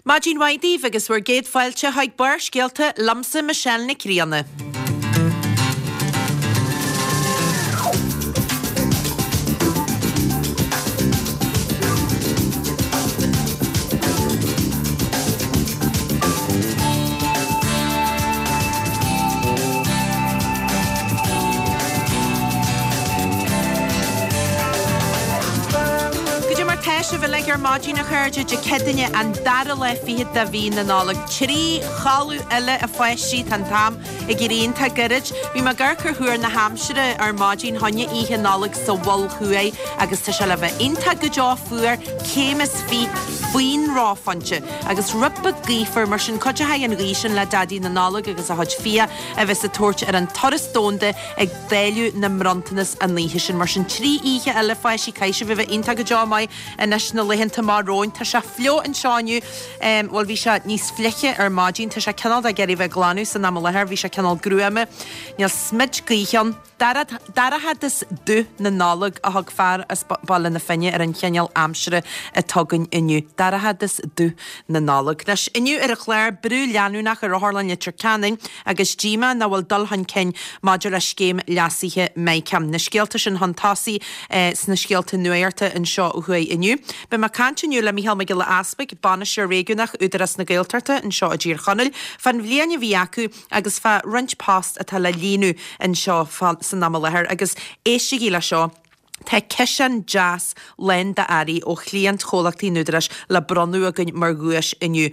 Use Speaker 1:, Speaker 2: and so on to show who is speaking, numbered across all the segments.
Speaker 1: Maidin mhaith daoibh agus bhur gcéad fáilte chuig Barrscéalta liomsa Michelle Nic Grianna. Goidé mar tá sibh uilig ar maidin a chairde, Dé Céadaoine an dara lá fichead de mhí na Nollag. 3 chodladh eile a pháistí, tá an t-am ag éirí iontach gairid. Bhí mé ag amharc ar thuar na haimsire ar maidin fá choinne oíche Nollag sa Mhol Thuaidh agus tá sé le bheith iontach go deo fuar, céim is fiche faoin reophointe agus rud beag gaofar, mar sin cuideochaidh an ghaoth sin le Daidí na Nollag agus a chuid fiach a bheas ag tabhairt ar an turas domhanda ag dáileadh na mbronntanas an oíche sin. Mar sin, 3 oíche eile, a pháistí, caithfidh sibh a bheith iontach go deo maith anois na laethanta amach romhainn. Tá sé fliuch anseo inniu, bhuel bhí sé níos fliche ar maidin, tá sé cineál de ag iarraidh bheith ag glanadh san am i láthair, bhí sé cineál gruama, níl smid gaoithe ann. Dorchadas dubh na Nollag a thug fear as Baile na Finne ar an chineál aimsire atá againn inniu. Dorchadas dubh na Nollag. Anois, inniu ar an chlár, brú leanúnach ar Otharlann Leitir Ceanainn agus díomá nach bhfuil dul chun cinn maidir le scéim leasaithe MiCAN. Na scéalta sin chun tosaigh sna scéalta nuachta anseo ó thuaidh inniu. Beidh mé ag caint inniu le Micheál Mac Giolla Easpaig, Bainisteoir Réigiúnach Údarás na Gaeltachta anseo i dTír Chonaill, fán bhliain a bhí acu agus fá roinnt post atá le líonadh anseo san am i láthair agus éistigí le seo, tá ciseán deas lán d'earraí ó chliaint chomhlachtaí an Údaráis le bronnadh againn mar dhuais inniu.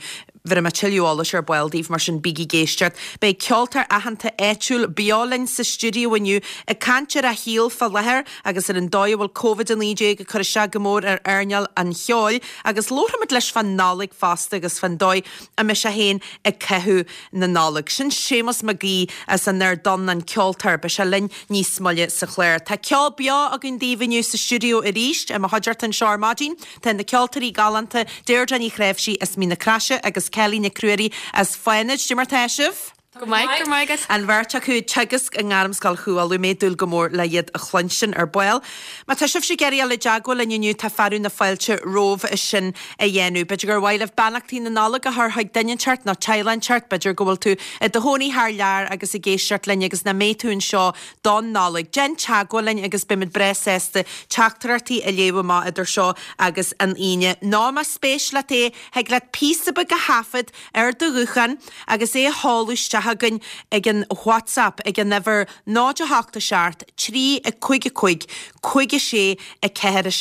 Speaker 1: Bhéarfaidh mé tuilleadh eolais ar ball daoibh, mar sin bígí ag éisteacht. Beidh ceoltóir aitheanta áitiúil beo linn sa stiúideo inniu ag caint ar a shaol fá láthair agus ar an dóigh a bhfuil Covid-19 ag cur isteach go mór ar earnáil an cheoil agus labharfaimid leis fán Nollaig fosta agus fán dóigh a mbeidh sé féin ag caitheamh na Nollag. Sin Séamus Mac Aoidh as an Ard Donn, an ceoltóir. Beidh sé linn níos moille sa chlár. Tá ceol beo againn daoibh inniu sa stiúideo arís. I mo chuideachta anseo ar maidin tá na ceoltóirí galánta Deirdre Ní Chnáimhsí as Mín na Craise agus Kelly Nic Ruairí as Fánaid. Cad é mar tá sibh?
Speaker 2: Go maith, go raibh maith agat.
Speaker 1: An bheirt acu ag teagasc i nGairmscoil Chú Uladh. Mé ag dúil go mór le iad a chluinstin ar ball. Má tá sibhse ag iarraidh dul i dteagmháil linn inniu tá fearadh na fáilte romhaibh sin a dhéanamh. B'fhéidir gur mhaith libh beannachtaí na Nollag a chur chuig duine inteacht nó teaghlach inteacht, b'fhéidir go bhfuil tú i do chónaí thar lear agus ag éisteacht linn agus nach mbeidh tú anseo don Nollaig. Déan teagmháil linn agus beimid breá sásta teachtaireachtaí a léamh amach idir seo agus an Aoine. Nó más spéis leat é, thig leat píosa beag a thaifead ar do ghuthán agus é a sheoladh isteach chugainn ag an WhatsApp ag an uimhir 0 8 7 3 5 5 5 6 4 7.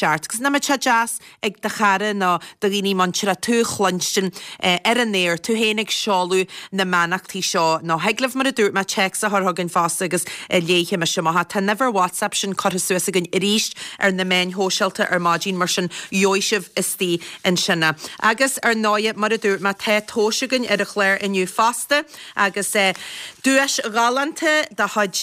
Speaker 1: Agus nach mbeadh sé deas ag do chara nó do dhaoine muinteartha tú a chluinstin ar an aer, tú féin ag seoladh na mbeannachtaí seo. Nó thig libh, mar a dúirt mé, téacs a chur chugainn fosta agus léifidh mise amach é. Tá an uimhir WhatsApp sin curtha suas againn arís ar na meáin shóisialta ar maidin, mar sin gheobhaidh sibh istigh ansin é. Agus, ar ndóighe, mar a dúirt mé, tá tomhais againn ar an chlár inniu fosta agus duais ghalánta de chuid,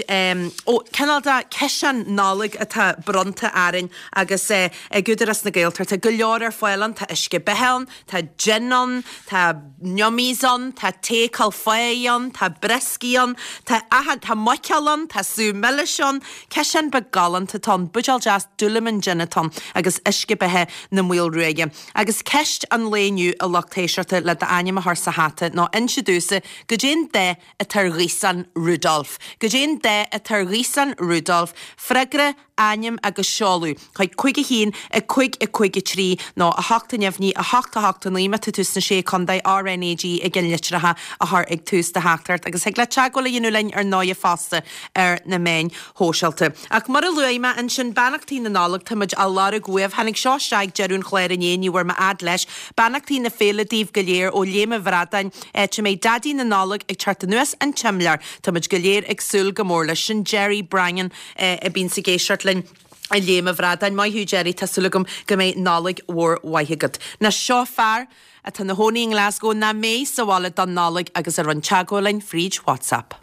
Speaker 1: ó, cineál de ciseán Nollag atá bronnta orainn agus ag Údarás na Gaeltachta go leor ar fáil ann, tá uisce beatha ann, tá jin ann, tá yummies ann, tá tae Cúil Pháigh ann, tá brioscaí ann, tá achan, tá muiceoil ann, tá sú milis ann, ciseán beag galánta atá ann, buidéal deas Dúlamán jin atá ann agus uisce beatha na Maolruaidhe. Agus ceist an lae inniu a lucht éisteachta le d'ainm a chur sa hata ná inse domhsa goidé an dath atá ar ghaosán Rudolf. Goidé an dath atá ar ghaosán Rudolf? Freagra. ainm agus seoladh chuig 5 1 5 5 3 nó 8 neamhní 8 8 9 má tá tú sna Sé Contae RnaG i gceannlitreacha a chur ag tús do theachtaireacht agus thig leat teagmháil a dhéanamh linn ar ndóighe fosta ar na meáin shóisialta. Ach mar a luaigh mé ansin, beannachtaí na Nollag, tá muid á lorg uaibh. Tháinig seo isteach ag deireadh an chláir inné, ní bhfuair mé fhad leis. Beannachtaí na féile daoibh go léir ó Léim an Bhradáin, áit a mbeidh Daidí na Nollag ag teacht anuas an tsimléar. Tá muid go léir ag súil go mór leis. Sin Jerry Brangan. a bhíonns ag éisteacht linn i Léim an Bhradáin. Maith thú Jerry, tá súil agam go mbeidh Nollaig mhór mhaith agat. Now seo fear atá ina chónaí i nGlasgow nach mbeidh sa bhaile don Nollaig agus a rinne teagmháil linn fríd WhatsApp.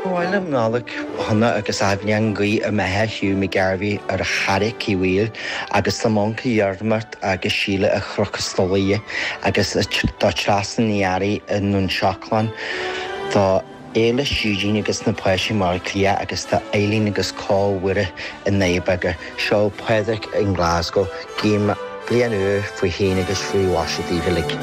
Speaker 3: Ba mhaith liom Nollaig shona agus athbhliain guí i mbeatha Hugh McGarvey ar a Charraic Uí Bhaoill agus do m'uncail Dhiarmaid agus Síle a Chnoc Stolaighe agus do Treasa Ní Fhearraigh i nDún Seacláin do. Éilis, Eugene agus na páistí i mBaile Átha Cliath agus tá Eileen agus Cóil Mhuire i nDoire Beaga. Seo Pádraig i nGlasgow. Guím bliain úr faoi shéan agus faoi mhaise daoibh uilig.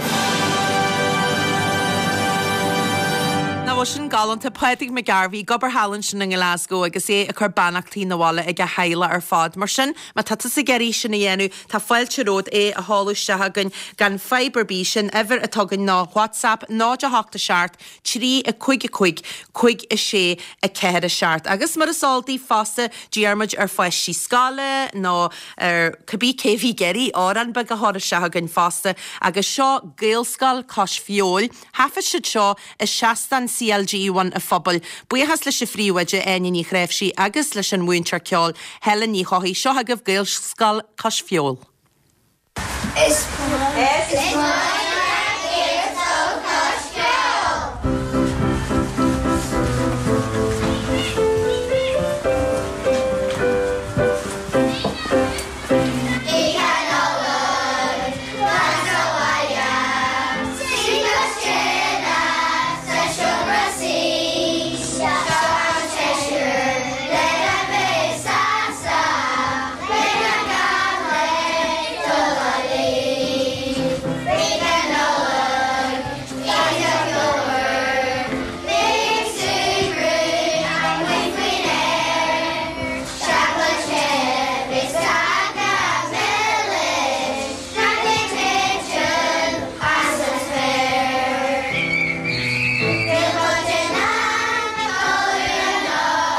Speaker 1: Nach bhfuil sin galánta? Pádraig McGarvey ag obair thall ansin i nGlasgow agus é ag cur beannachtaí 'na bhaile ag a theaghlach ar fad. Mar sin, má tá tusa ag iarraidh sin a dhéanamh, tá fáilte romhat é a sheoladh isteach chugainn gan fadhb ar bith. Sin uimhir atá againn ná WhatsApp 0 8 7 3 5 5 5 6 4 7. Agus mar is eol daoibh fosta, d'iarr muid ar pháistí scoile nó ar cibé cé a bhí ag iarraidh amhrán beag a chur isteach chugainn fosta agus seo Gaelscoil Cois Feabhail. Thaifead siad seo i seastán CLG Bhun a' Phobail. Buíochas leis an phríomhoide Áine Ní Chnáimhsí agus leis an mhúinteoir ceoil Helen Ní Chofaigh. Seo chugaibh Gaelscoil Cois Feabhail.
Speaker 2: Is maith leat Gaelscoil Cois Feabhail! Oíche Nollag, fan sa bhaile, suigh cois tine sa seomra suí, seo an seisear lena bheith sásta. Beidh na gach linn dul a luí. Oíche Nollag, oíche cheolmhar, bígí ag súgradh amuigh faoin aer. Seacláid the beidh cáca milis, cnaipe ag titim as an spéir. Níl muid in ann codladh anocht.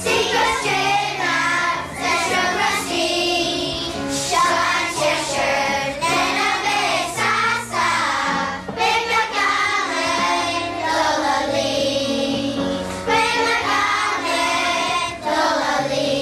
Speaker 2: Suigh cois tine sa seomra suí, seo an seisear lena bheith sásta, beidh na gach linn dul a luí, beidh na gach linn dul a luí.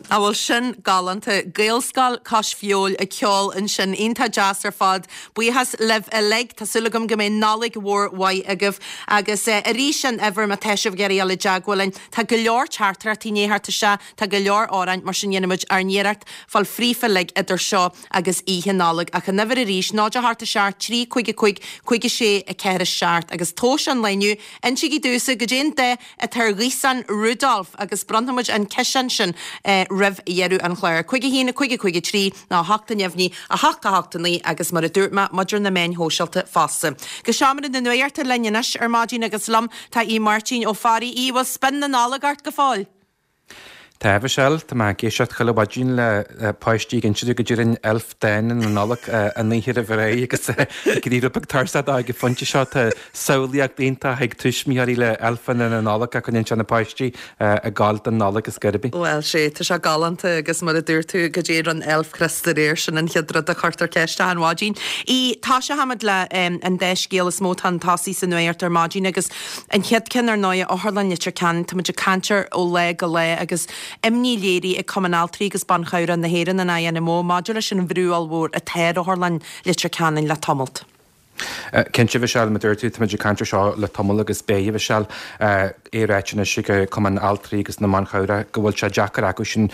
Speaker 1: An bhfuil sin galánta? Gaelscoil Cois Feabhail ag ceol ansin. Iontach deas ar fad. Buíochas libh uilig. Tá súil agam go mbeidh Nollaig mhór mhaith agaibh. Agus arís an uimhir má tá sibh ag iarraidh dul i dteagmháil linn. Tá go leor teachtaireachtaí i ndiaidh theacht isteach, tá go leor amhráin, mar sin déanfaidh muid ár n-iarracht fáil fríofa uilig idir seo agus Oíche Nollag. Ach an uimhir arís, 0 8 7 3 5 5 5 6 4 7. Agus tomhas an lae inniu, insígí domhsa goidé an dath atá ar ghaosán Rudolf agus bronnfaidh muid an ciseán sin roimh dheireadh an chláir. 5 1 5 5 3 nó 8 neamhní 8 8 9 agus mar a dúirt mé, muid ar na meáin shóisialta fosta. Go seomra na nuachta linn anois ar maidin agus liom tá Aodh Máirtín Ó Fearraigh. Aodh, bhfuil spion na Nollag ort go fóill?
Speaker 4: Tá, a Mhichelle. Tá mé ag éisteacht chuile mhaidin le páistí ag inse domh go dtéann elf dána na Nollag an oíche roimh ré agus ag éirí rud beag tuirseach dó ag an phointe seo. Tá samhlaíocht iontach ag tuismitheoirí le elfeanna na Nollag a choinníonn sé na páistí ag gabháil don Nollaig is gurb í.
Speaker 1: Bhuel, sea, tá sé galánta agus mar a dúirt tú, goidé ar an elf Chríost aréir, sin an chéad rud a chuirtear ceist achan mhaidin. Aodh, tosóchaimid le an dá scéal is mó atá chun tosaigh sa nuacht ar maidin agus An chéad ceann, ar ndóigh, Otharlann Leitir Ceanainn, tá muid ag caint air ó lá go lá agus imní léirithe ag Cumann Altraí agus Ban Chabhrach na hÉireann, an INMO, maidir leis an bhrú ollmhór atá ar Otharlann Leitir Ceanainn le tamalt.
Speaker 4: Cinnte, a Mhichelle, mar a dúirt tú, tá muid ag caint air seo le tamall agus beidh, a Mhichelle, é ráite anois ag Cumann Altraí agus na mBan Chabhrach go bhfuil sé deacair acu sin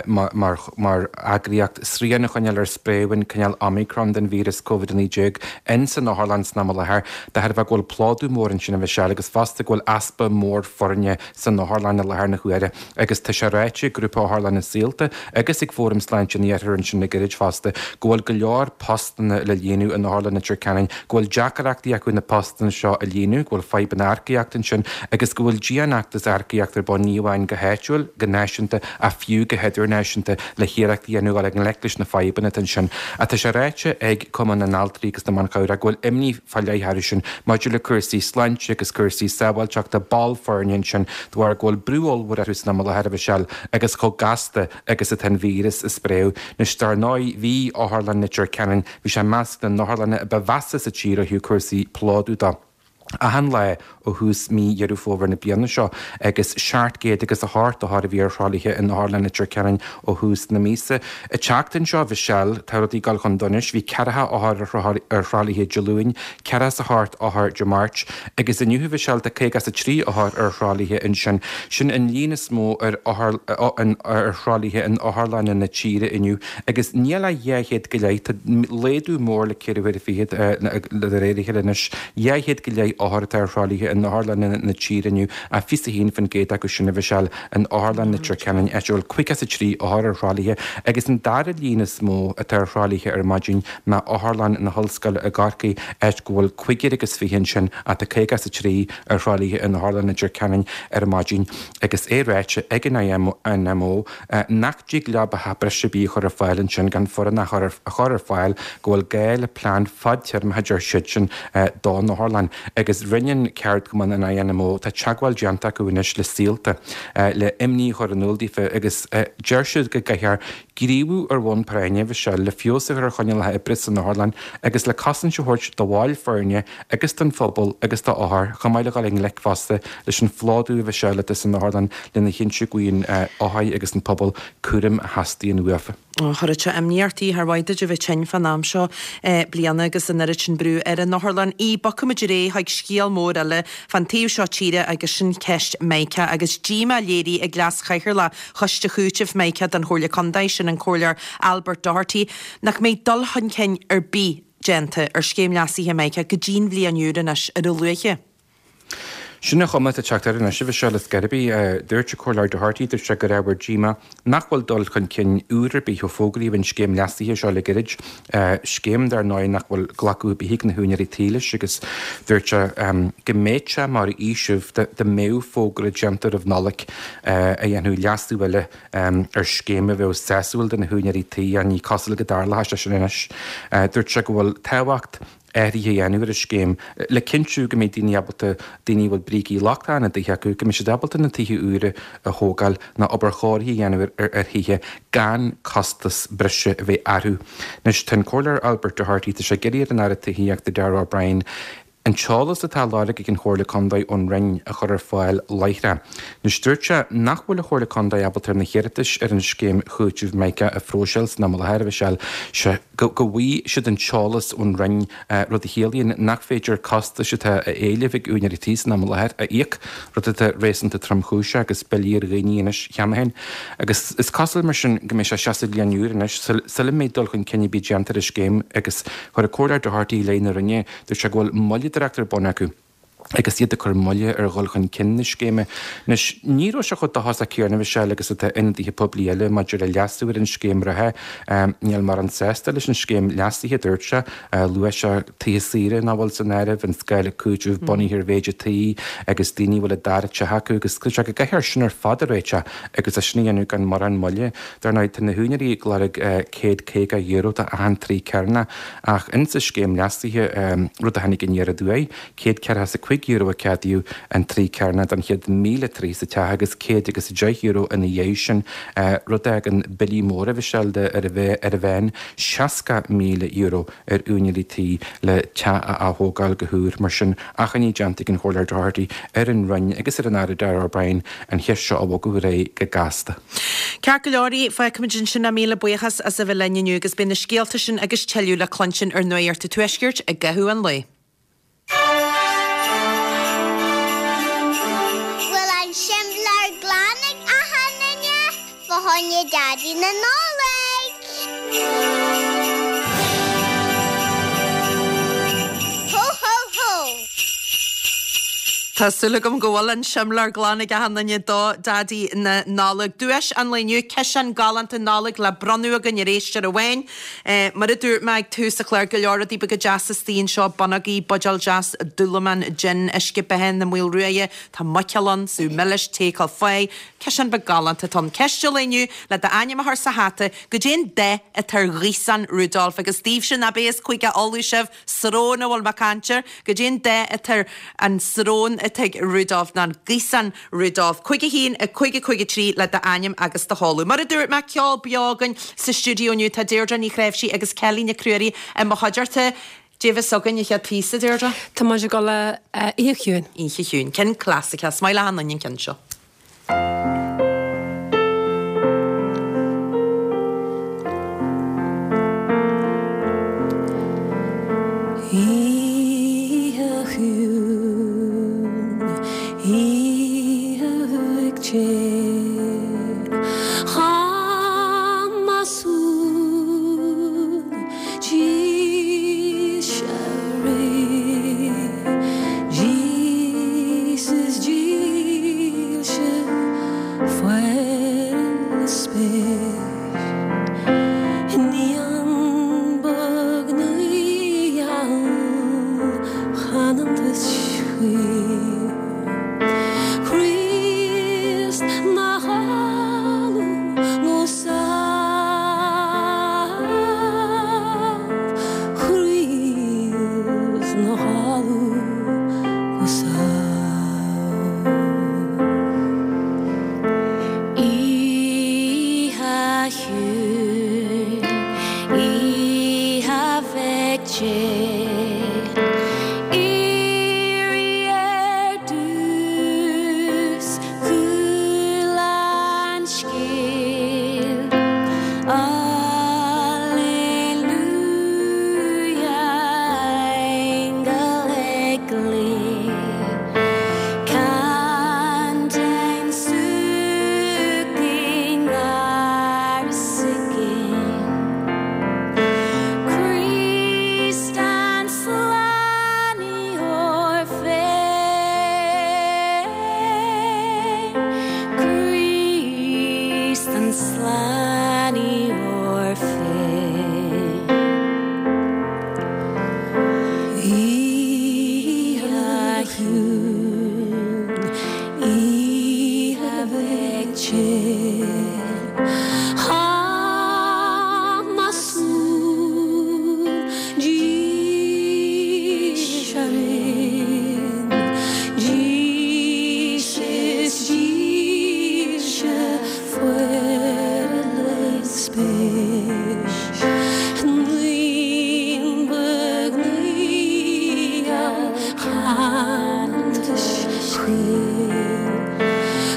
Speaker 4: mar mar eagraíocht srian a choinneáil ar spréadh an cineál Omicron den víreas Covid-19 in san otharlann san am i láthair. De thairbhe go bhfuil plódú mór ansin a Mhichelle agus fosta go bhfuil easpa mór foirne san otharlann i láthair na huaire agus tá sé ráite ag Grúpa Otharlanna Saolta agus ag Fóram Sláinte an Iarthair ansin le gairid fosta go bhfuil go leor postanna le líonadh in Otharlann Leitir Ceanainn, go. go bhfuil deacaireachtaí acu na postanna seo a líonadh, go bhfuil fadhbanna earcaíochta ansin agus go bhfuil dianfheachtas earcaíochta ar bun ní amháin go háitiúil, go náisiúnta ach fiú go hidirnáisiúnta le hiarracht a dhéanamh dul i ngleic leis na fadhbanna atá ansin. Ach tá sé ráite ag Cumann na nAltraí agus na mBan Cabhrach go bhfuil imní fá leith orthu sin maidir le cúrsaí sláinte agus cúrsaí sábháilteachta ball foirne ansin de bharr go bhfuil brú ollmhór orthu san am i láthair a Mhichelle agus chomh gasta agus atá an víreas ag spréadh. Anois dar ndóigh bhí Otharlann Leitir Ceanainn, bhí sé i measc na n-otharlanna a ba mheasa sa tír ó thaobh cúrsaí plódú de. Achan lá ó thús mí Dheireadh Fómhair na bliana seo agus 700 agus 8 othar a bhí ar thralaithe in Otharlann Leitir Ceanainn ó thús na míosa. An tseachtain seo, a Mhichelle, tá rudaí ag dul chun donais. Bhí ceathracha othar ar thralaithe Dé Luain, ceathracha is a hocht othar Dé Máirt agus inniu, a Mhichelle, tá 53 othar ar thralaithe ansin. Sin an líon is mó ar ar thralaithe in otharlanna na tíre inniu agus níl ach 200 go leith, tá laghdú mór le ceithre huaire fichead de réir a chéile anois, 200 go leith othar atá ar thralaithe in otharlanna na tíre inniu ach 21% acu sin, a Mhichelle, in Otharlann Leitir Ceanainn, áit a bhfuil 53 othar ar thralaithe agus an dara líon is mó atá ar thralaithe ar maidin ná Otharlann na hOllscoile i gCorcaigh, áit go bhfuil cúigear agus fiche ansin ach tá 53 ar thralaithe in Otharlann Leitir Ceanainn ar maidin agus é ráite ag an INMO nach dtig leo beatha breise ar bith a chur ar fáil ansin gan foireann a chur ar fáil go bhfuil gá le plean fadtéarmach a deir siadsan don otharlann agus rinne an ceardchumann an INMO tá teagmháil déanta acu anois le Saolta le imní a chur in iúl daofa agus deir siad go gcaithfear gníomhú ar bhonn práinne, a Mhichelle, le feabhas a chur ar choinníollacha oibre san otharlann agus le cosaint a thabhairt do bhaill foirne agus don phobal agus d'othair, chomh maith le dhul i ngleic fosta leis an phlódú, a Mhichelle, atá san otharlann lena chinntiú go bhfaigheann othair agus an pobal cúram a theastaíonn uafa.
Speaker 1: Chuirfeadh sé imní ort, char mhaith duit a bheith tinn fán am seo bliana agus an oiread sin brú ar an otharlann. Í, Bogfaimid ar aghaidh chuig scéal mór eile fán taobh seo tíre agus sin ceist Micah agus díomá léirithe ag Leas-Chathaoirleach Choiste Chúitimh Micah don Chomhairle Contae, sin an Comhairleoir Albert Doherty, nach mbeidh dul chun cinn ar bith déanta ar scéim leasaithe Micah go dtí'n bhliain úr anois ar a luaithe.
Speaker 4: Sin an chuma atá ag teacht air anois, a Mhichelle, ar scor ar bith. Dúirt an Comhairleoir Doherty, dúirt sé gur ábhar díomá nach bhfuil dul chun cinn úr ar bith ó fógraíodh an scéim leasaithe seo le gairid, scéim dar ndóigh nach bhfuil glacadh ar bith ag na húinéirí tí leis agus dúirt sé go mbeadh sé mar fhaoiseamh dá mbeadh fógra déanta roimh Nollaig a dhéanfadh leasú eile ar scéim a bheadh sásúil do na húinéirí tí ach ní cosúil go dtarlóidh sé sin anois. Dúirt sé go bhfuil tábhacht athruithe a dhéanamh ar an scéim le cinntiú go mbeidh daoine ábalta, daoine a bhfuil brící lochtacha ina dtithe acu, go mbeidh siad ábalta na tithe úra a thógáil nó obair chóirithe a dhéanamh ar thithe gan costas breise a bheith orthu. Anois, tá an Comhairleoir Albert Doherty, tá sé ag iarraidh ar an Aire Tithíochta Darragh O'Brien an t-eolas atá á lorg ag an Chomhairle Contae ón Roinn a chur ar fáil láithreach. Anois dúirt sé nach bhfuil an Chomhairle Contae ábalta ar na hiarratais ar an scéim chúitimh Mica a phróiseáil san am i láthair, a Mhichelle, sé go bhfaighidh siad an t-eolas ón Roinn, rud a chiallaíonn nach féidir costais atá á éileamh ag úinéirí tí san am i láthair a íoc, rud atá réasúnta tromchúiseach agus billí ar dhaoine anois cheana féin. Agus is cosúil mar sin go mbeidh sé isteach sa bhliain úr anois sula mbeidh dul chun cinn ar bith déanta ar an scéim agus chuir an Comhairleoir Doherty i leith na Roinne Dúirt sé go bhfuil moilleadóireacht ar bun acu agus iad ag cur moille ar dhul chun cinn na scéime. Anois, ní raibh sé chomh dóchasach céanna, a Mhichelle, agus atá ionadaithe poiblí eile maidir le leasú ar an scéim reatha. Níl mórán sásta leis an scéim leasaithe, a dúirt sé. Luaigh sé tithe saoire nach bhfuil san áireamh, an scála cúitimh bunaithe ar mhéid an tí agus daoine a bhfuil a dara teach acu agus dúirt sé go gcaithfear sin ar fad a réiteach agus é sin a dhéanamh gan mórán moille. Dar ndóigh, tá na húinéirí ag lorg €150 do achan troigh cearnach. Ach insa scéim leasaithe, rud a tháinig aniar aduaidh, €145 a ceadaíodh an troigh cearnach don chéad 1,000 troigh sa teach agus €110 ina dhiaidh sin, rud a fhágann billí móra, a Mhichelle, de ar ar an mheán €60,000 ar úinéirí tí le teach a ath-thógáil go húr. Mar sin, achainí déanta ag an Chomhairleoir Doherty ar an Roinn agus ar an Aire Darragh O'Brien an cheist seo a bhogadh ar aghaidh go gasta.
Speaker 1: Ceart go leor, fágfaimid ansin é. Míle buíochas as a bheith linn inniu agus beidh na scéalta sin agus tuilleadh le cluinstin ar Nuacht an Tuaiscirt i gcaitheamh an lae.
Speaker 2: Bhfuil an simléar glan ag achan duine fá choinne Daidí na Nollag? Hó hó hó!
Speaker 1: Tá súil agam go bhfuil an simléar glan ag achan duine do Daidí na Nollag. Duais an lae inniu, ciseán galánta Nollag le bronnadh againn ar éisteoir amháin. Mar a dúirt mé ag tús an chláir, go leor rudaí beaga deasa istigh anseo, bonnógaí, buidéal deas dúlamán, jin, uisce beatha na Maolruaidhe, tá muiceoil ann, sú milis, tae caife, ciseán beag galánta atá ann. Ceist an lae inniu, le d'ainm a chur sa hata, goidé an dath atá ar ghaosán Rudolf? Agus daoibhse nach b'é is Cúige Uladh sibh, Srón a bhfuil mé ag caint air. Goidé an dath atá ar an srón atá ag Rudolf, nó an gaosán Rudolf. 5 1 5 5 3 le d'ainm agus do sheoladh. Mar a dúirt mé, ceol beo againn sa stiúideo inniu. Tá Deirdre Ní Chnáimhsí agus Kelly Nic Ruairí i mo chuideachta. Dé bheas againn an chéad phíosa, Deirdre?
Speaker 5: Tá muid ag dul le Oíche Chiúin.
Speaker 1: Oíche Chiúin. Ceann clasaiceach. Is maith le achan duine an ceann seo.
Speaker 5: Oíche chiúin, oíche uaigh Chamasún. Dílse Rí, Jesus dílse fuair na spéir. Naíon beag naoi-gheal chanann duit chaoin. Críost 'na chodladh go sámh. Críost 'na chodladh go sámh. Oíche chiúin, oíche bheag Dé, Éirigh ar dtús, Chuala an scéal, Alleluia, aingeal ag glaoch, Cantain suaimhneach i ngar is i gcéin. Críost an Slánaitheoir féin, Críost an Slánaitheoir féin. Oíche chiúin, oíche bheag Dé.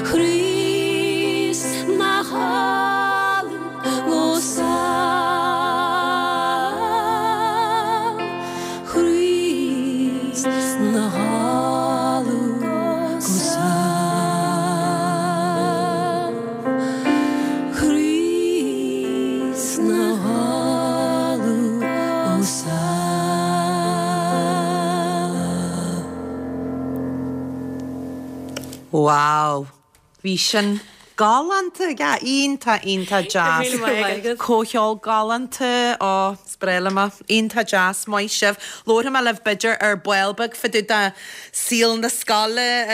Speaker 5: Críost 'na chodladh go sámh, Críost 'na chodladh go sámh, Críost 'na chodladh go sámh.
Speaker 1: Wow! Bhí sin galánta, yeah, iontach, iontach deas.
Speaker 5: Go raibh míle maith agat.
Speaker 1: Comhcheol galánta, ó, is breá liom é. Iontach deas, maith sibh. Labharfaidh mé libh b'fhéidir ar ball beag fá dtaobh de saol na scoile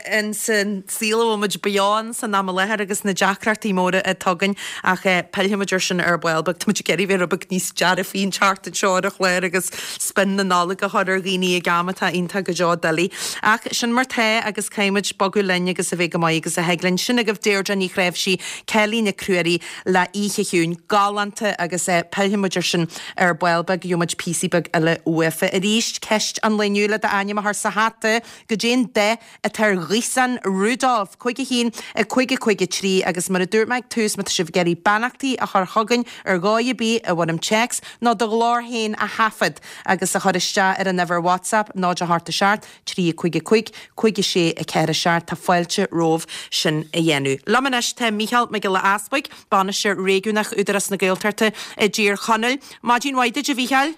Speaker 1: ins an saol a bhfuil muid beo ann san am i láthair agus na deacrachtaí móra atá againn ach pillfidh muid ar sin ar ball beag. Tá muid ag iarraidh bheith rud beag níos dearfaí an tseachtain seo ar an chlár agus spion na Nollag a chur ar dhaoine ag am atá iontach go deo doiligh. Ach sin mar tá agus caithfidh muid bogadh linn agus a bheith go maith agus a thig linn. Sin agaibh Deirdre Ní Chnáimhsí, Kelly Nic Ruairí le Oíche Chiúin. Galánta agus pillfidh muid ar sin ar ball beag, gheobhaidh muid píosaí beag eile uafa. Arís, ceist an lae inniu le d'ainm a chur sa hata, goidé an dath atá ar ghaosán Rudolf, 5 1 5 5 3 agus mar a dúirt mé ag tús, má tá sibh ag iarraidh beannachtaí a chur chugainn ar dhóigh ar bith i bhfoirm téacs nó do ghlór féin a thaifead agus a chur isteach ar an uimhir WhatsApp 0 8 7 3 5 5 5 6 4 7 tá fáilte romhaibh sin a dhéanamh. Liom anois tá Mícheál Mac Giolla Easbuig, Bainisteoir Réigiúnach Údarás na Gaeltachta i dTír Chonaill. Maidin mhaith duit a Mhícheáil.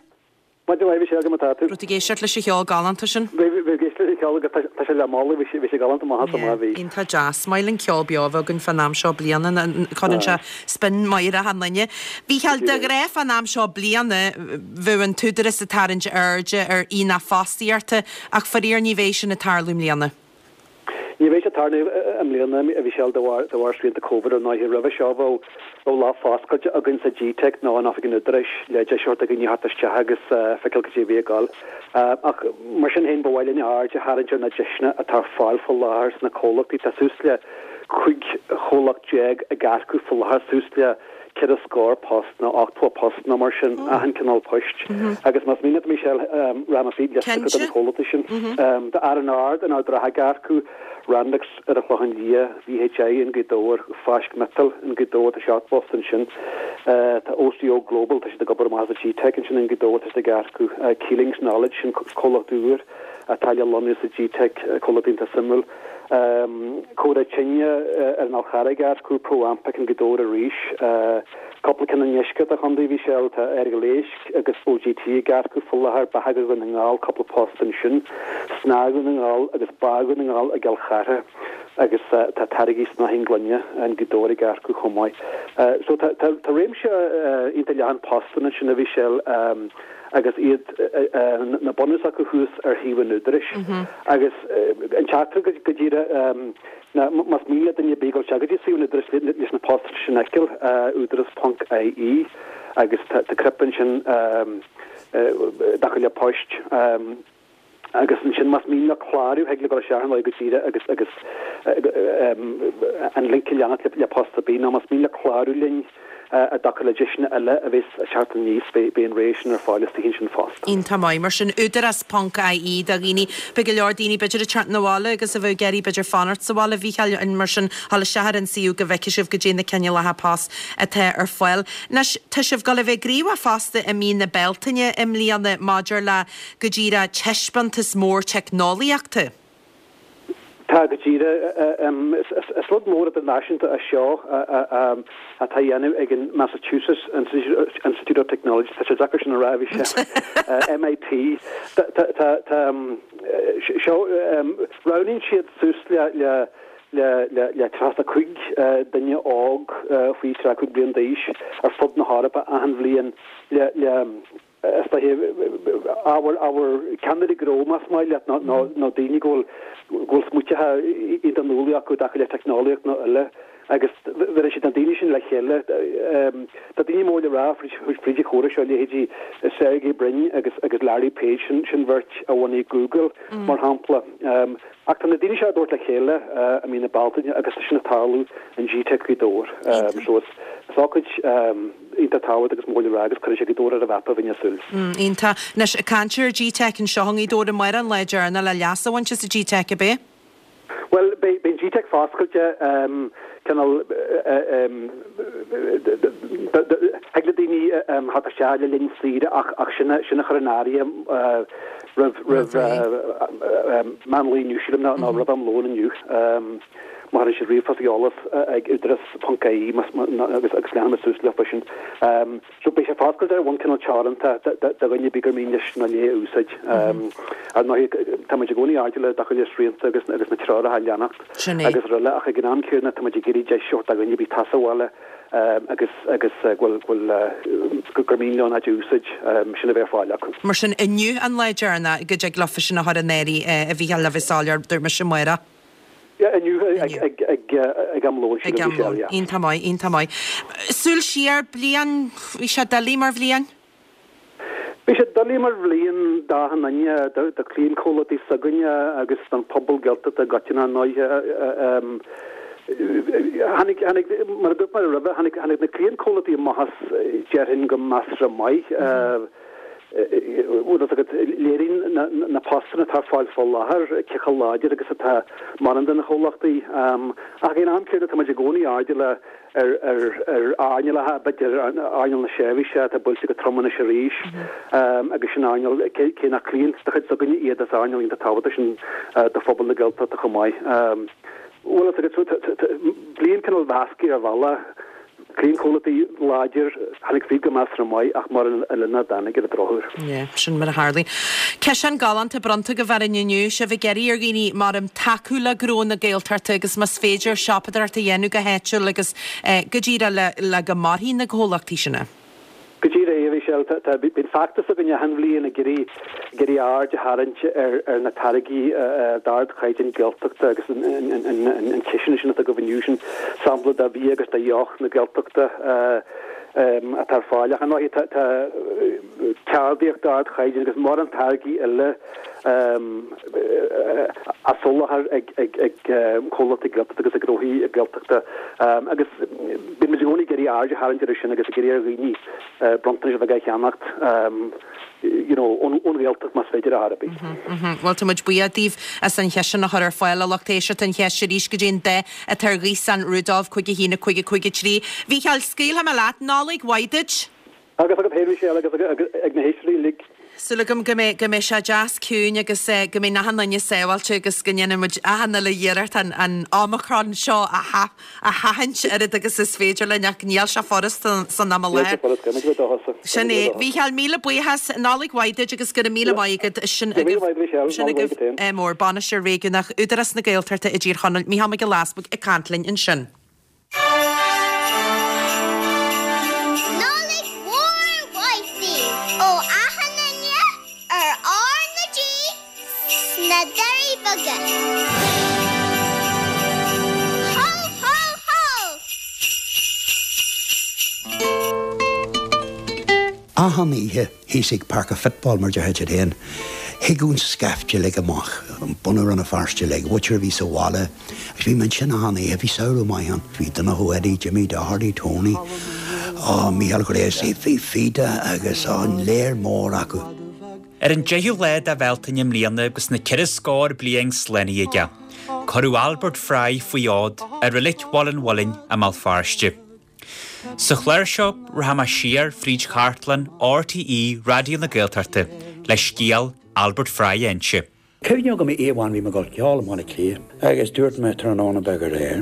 Speaker 6: Maidin mhaith, a Mhichelle, cad é mar atá tú?
Speaker 1: Raibh tú ag éisteacht leis an cheol galánta sin?
Speaker 6: Bhí, bhí ag éisteacht leis an cheol agus tá sé le moladh, bhí sé, bhí sé galánta maith as amach, bhí.
Speaker 1: Iontach deas. Is maith linn ceol beo a bheith againn fán am seo bliana, cuireann sé spion maith ar achan duine. Mhícheáil, de ghnáth fán am seo bliana, bheadh an tÚdarás ag tarraingt airde ar aonach fostaíochta, ach faraor ní bheidh sin ag tarlú i mbliana.
Speaker 6: Ní bheidh sé ag tarlú i mbliana, a Mhichelle, de bharr de bharr srianta Covid ar ndóighe. Roimhe seo bheadh bheadh lá foscailte againn sa GTeic nó in oifig an Údaráis le deis a thabhairt do dhaoine theacht isteach agus feiceáil cad é a bhí ag gabháil. Ach mar sin féin ba mhaith linn aird a tharraingt ar na deiseanna atá ar fáil faoi láthair sna comhlachtaí. Tá suas le 15 chomhlacht ag earcú faoi láthair, suas le ceithre scór post nó 80 post nó mar sin, achan cineál poist. Agus más mian leat, Michelle, rachaidh mé fríd liosta de na comhlachtaí sin. Tá R&R in Ard an Rátha ag earcú, Randex ar an Chlochán Liath, VHI in Gaoth Dobhair, Fáisc Miotail in Gaoth Dobhair, tá 7 bpost ansin. Tá OCO Global, tá siad ag obair amach as an GTeic ansin in Gaoth Dobhair, tá siad ag earcú. Keelings Knowledge, sin comhlacht úr atá le lonnú sa GTeic, comhlacht iontach suimiúil. Comhrá Tine ar an Fhál Charraigh ag earcú, Pro Ampec in Gaoth Dobhair arís. Cúpla ceann i ndeisceart an chontae a Mhichelle, tá Errigal Éisc agus OGT ag earcú faoi láthair, Beatha Dhún na nGall, cúpla post ansin, Snáth Dhún na nGall agus Bá Dhún na nGall i gCill Chartha agus tá Táirgí Snáithín Gloine in Gaoth Dobhair ag earcú chomh maith. So tá réimse iontach leathan postanna ansin a Mhichelle. agus iad na bunús acu thuas ar shuíomh an Údaráis. Agus an teachtaireacht go díreach ná más mian le duine ar bith dul isteach go dtí suíomh an Údaráis leis na postanna sin a fheiceáil, údaras ponc ie, agus tá cnaipe ansin i dtaca le poist. Agus ansin más mian leo clárú, thig leo dul isteach ar ndóigh go díreach agus agus an link a leanacht le post ar bith, nó más mian leo clárú linn i dtaca le deiseanna eile a bheas ag teacht aníos, beidh an rogha sin ar fáil istoíche ansin fosta.
Speaker 1: Iontach maith. Mar sin, údarás ponc ie do dhaoine. Beidh go leor daoine b'fhéidir ag teacht 'na bhaile agus a bheadh ag iarraidh b'fhéidir fanacht sa bhaile, a Mhícheáil, mar sin, dhul isteach ar an suíomh go bhfeicfidh sibh goidé na cineálacha post atá ar fáil. Anois, tá sibh ag dul a bheith gníomhach fosta i mí na Bealtaine i mbliana maidir le go díreach taispeántas mór teicneolaíochta.
Speaker 6: Tá, go díreach. Is rud mór idirnáisiúnta é seo atá á dhéanamh ag an Massachusetts Institute of Technology, tá sé deacair sin a rá, a Mhichelle, MIT. Tá, tá, seo, roghnaíonn siad suas le, le, le, le, le 35 duine óg faoi 35 bliain d'aois ar fud na hEorpa achan bhliain le, le, is dóiche, ábhar, ábhar ceannairí gnó, más maith leat, nó, nó, nó daoine go bhfuil, go bhfuil smaoiteacha iontach nuálaí acu i dtaca le teicneolaíocht nó eile, agus bheireann siad na daoine sin le chéile. Tá daoine mór le rá fríd, fríd an chomhrá seo, leithéidí Sergey Brin agus, agus Larry Page, sin, sin bheirt a bhunaigh Google, mar shampla. Ach tá na daoine seo á dtabhairt le chéile i mí na Bealtaine agus tá sin ag tarlú in GTeic Ghaoth Dobhair. So is, is ócáid, Iontach tábhachtach agus mór le rá agus cuirfidh sé Gaoth Dobhair ar an mhapa bheinn ag súil.
Speaker 1: Iontach. Anois, ag caint ar GTeic anseo i nGaoth Dobhair, amárach an lá deireanach le leas a bhaint as an GTeic, ab é?
Speaker 6: Bhuel, beidh an GTeic foscailte, cineál, thig le daoine theacht isteach le linn saoire ach sin a chur in áirithe roimh meán lae inniu, sílim, nó roimh am lóin inniu. Má chuireann siad ríomhphost ag eolas ag údaras ponc ie agus agus leanfaidh muid suas leo sin. So beidh sé foscailte ar bhonn cineál teoranta do dhuine ar bith gur mian leis nó léi a úsáid. Ar ndóigh tá muid i gcónaí airdeallach i dtaca le srianta agus agus na treoracha a leanacht agus araile ach ag an am céanna tá muid ag iarraidh deis a thabhairt do dhuine ar bith atá sa bhaile agus agus go bhfuil go gur mian leo an áit a úsáid sin a bheith ar fáil acu.
Speaker 1: Mar sin inniu an lá deireanach go dtig leofa sin a chur in áirithe a Mhícheáil le bheith soiléir, dúirt mise amárach.
Speaker 6: Yeah, inniu ag am lóin,
Speaker 1: Ag am lóin. Iontach maith, iontach maith. Súil siar, bliain, bhí sé doiligh mar bhliain?
Speaker 6: Bhí sé doiligh mar bhliain d'achan duine, do chliantchomhlachtaí s'againne agus don phobal Gaeltachta i gcoitinne, ar ndóighe. Tháinig, tháinig, mar a dúirt mé roimhe, tháinig, tháinig na cliantchomhlachtaí amach as, déarfainn, go measartha maith. Bhfuil fhios agat, léiríonn na postanna atá ar fáil fá láthair cé chomh láidir agus atá mórán de na chomhlachtaí. Ach ag an am céanna tá muid i gcónaí airdeallach ar earnálacha, b'fhéidir earnáil na seirbhíse atá buailte go trom anois arís agus sin earnáil, cé nach cliant de chuid s'againne iad, is earnáil iontach tábhachtach sin do phobal na Gaeltachta chomh maith. Bhfuil fhios agat, bliain cineál mheasctha ar bhealach. Cliantchomhlachtaí láidir, tháinig fríd go measartha maith ach mórán eile nach dtáinig ar an drochuair.
Speaker 1: Yeah, sin mar a tharlaíonn. Ciseán galánta bronnta agaibh orainn inniu, sibh ag iarraidh ar dhaoine maram tacú le gnó na Gaeltachta agus más féidir siopadóireacht a dhéanamh go háitiúil agus go díreach le go mairfidh na comhlachtaí sin.
Speaker 6: Go díreach é, a Mhichelle. Tá, bíonn feachtas againn achan bhliain ag iarraidh, ag iarraidh aird a tharraingt ar, ar na táirgí d'ardchaighdeán Gaeltachta agus an, an, an, an, an ciseán sin atá agaibh inniu, sin sampla de bhia agus de dheoch na Gaeltachta atá ar fáil. Ach ar ndóigh tá, tá ceardaíocht d'ardchaighdeán agus mórán táirgí eile á soláthar ag, ag, ag comhlachtaí Gaeltachta agus ag gnóthaí Gaeltachta agus bíonn muid i gcónaí ag iarraidh aird a tharraingt air sin agus ag iarraidh ar dhaoine bronntanais bheaga a cheannacht you know ón Ghaeltacht más féidir ar chor ar bith.
Speaker 1: Bhuel tá muid buíoch daoibh as an chiseán a chur ar fáil a lucht éisteachta an cheist arís goidé an dath atá ar ghaosán Rudolf 5 1 5 5 3. Mhícheáil, scaoilfidh mé leat. Nollaig mhaith duit!
Speaker 6: Agus agat féin, a Mhichelle, agus ag na héisteoirí uilig.
Speaker 1: Súil agam go mbeidh, go mbeidh sé deas ciúin agus go mbeidh achan duine sábháilte agus go ndéanfaidh muid achan uile iarracht an, an Omicron seo a sha, a sheachaint oiread agus is féidir linn ach níl sé furasta san am i
Speaker 6: Níl sé furasta, caithfidh muid a bheith dóchasach.
Speaker 1: Sin é. Mhícheáil, míle buíochas, Nollaig mhaith duit agus go raibh míle maith agat. Sin
Speaker 6: Go raibh míle maith agat, Michelle.
Speaker 1: Sin
Speaker 6: Nollaig mhaith
Speaker 1: agaibh
Speaker 6: duit féin.
Speaker 1: mór, Bainisteoir Réigiúnach Údarás na Gaeltachta i dTír Chonaill, Mícheál Mac Giolla Easbuig ag caint linn ansin.
Speaker 2: Nollaig mhór mhaith daoibh ó achan duine ar R na G sna Doirí Beaga. Hó hó hó!
Speaker 3: Achan oíche thíos ag Páirc an Football mar déarfá duit féin, thigeadh an scaifte uilig amach, bunadh Rann na Feirste uilig, mhuintir a bhí sa bhaile, agus bhí mé ansin achan oíche, bhí samhradh maith ann, bhí Donncha Ó Eddie, Jimmy Doherty, Tony, ó, Mícheál Ghréasaí, bhí Fida agus, ó, an léar mór acu.
Speaker 7: Ar an 10ú lá de Bhealtaine i mbliana agus na ceithre scór bliain slánaithe aige, cuireadh Albert Fry faoi fhód i Reilig Bhaile an Mhuilinn i mBéal Feirste. Sa chlár seo, rachaidh mé siar fríd chartlann RTÉ Raidió na Gaeltachta le scéal Albert Fry a inse.
Speaker 3: Cuimhne agam oíche amháin bhí mé ag dul ceol i mBaile Átha Cliath agus dúirt mé tráthnóna beag aréir.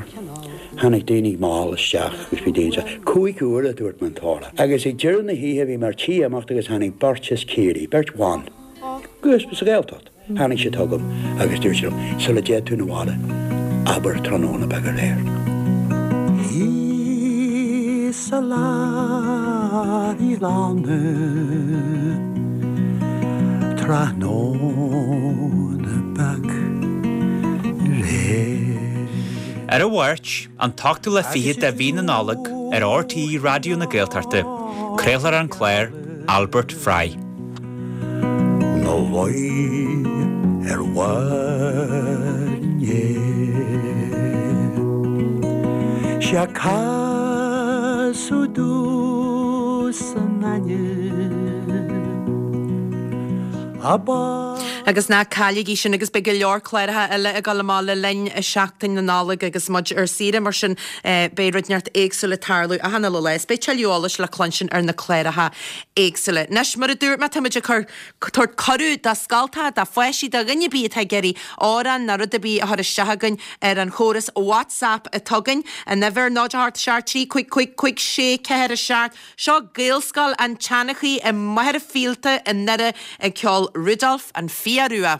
Speaker 3: Tháinig daoine mall isteach agus bhí daoine isteach. Chúig huaire a dúirt mé an t-amhrán. Agus ag deireadh na hoíche bhí mé ar tí imeacht agus tháinig beirt as Ciarraí, beirt bhan, agus sa Ghaeltacht. Tháinig siad chugam agus dúirt siad liom, sula dtéid tú 'na bhaile, abair tráthnóna beag aréir.
Speaker 5: Thíos sa lár i lána tráthnóna beag aréir.
Speaker 7: Ar an Mháirt, an t-ochtú lá fichead de mhí na Nollag, ar RTÉ Raidió na Gaeltachta, craolfar an clár Albert Fry.
Speaker 5: 'Na luí ar bharr an fhéir. 'Sé casadh domhsa an ainm ab
Speaker 1: Agus ná cailligí sin agus beidh go leor cláracha eile ag dul amach le linn Seachtain na Nollag agus muid ar saoire mar sin beidh rud inteacht éagsúil ag tarlú achan uile lá is beidh tuilleadh eolais le cluinstin ar na cláracha éagsúla. Anois, mar a dúirt mé, táimid ag cur, tabhairt cuireadh do scoltacha, do pháistí, do dhuine ar bith atá ag iarraidh amhrán ná rud ar bith a chur isteach chugainn ar an chóras WhatsApp atá againn, an uimhir, 0 8 7 3 5 5 5 6 4 7. Seo Gaelscoil an tSeanchaí i Machaire Fíolta i nDoire ag ceol Rudolf an Fia Rua.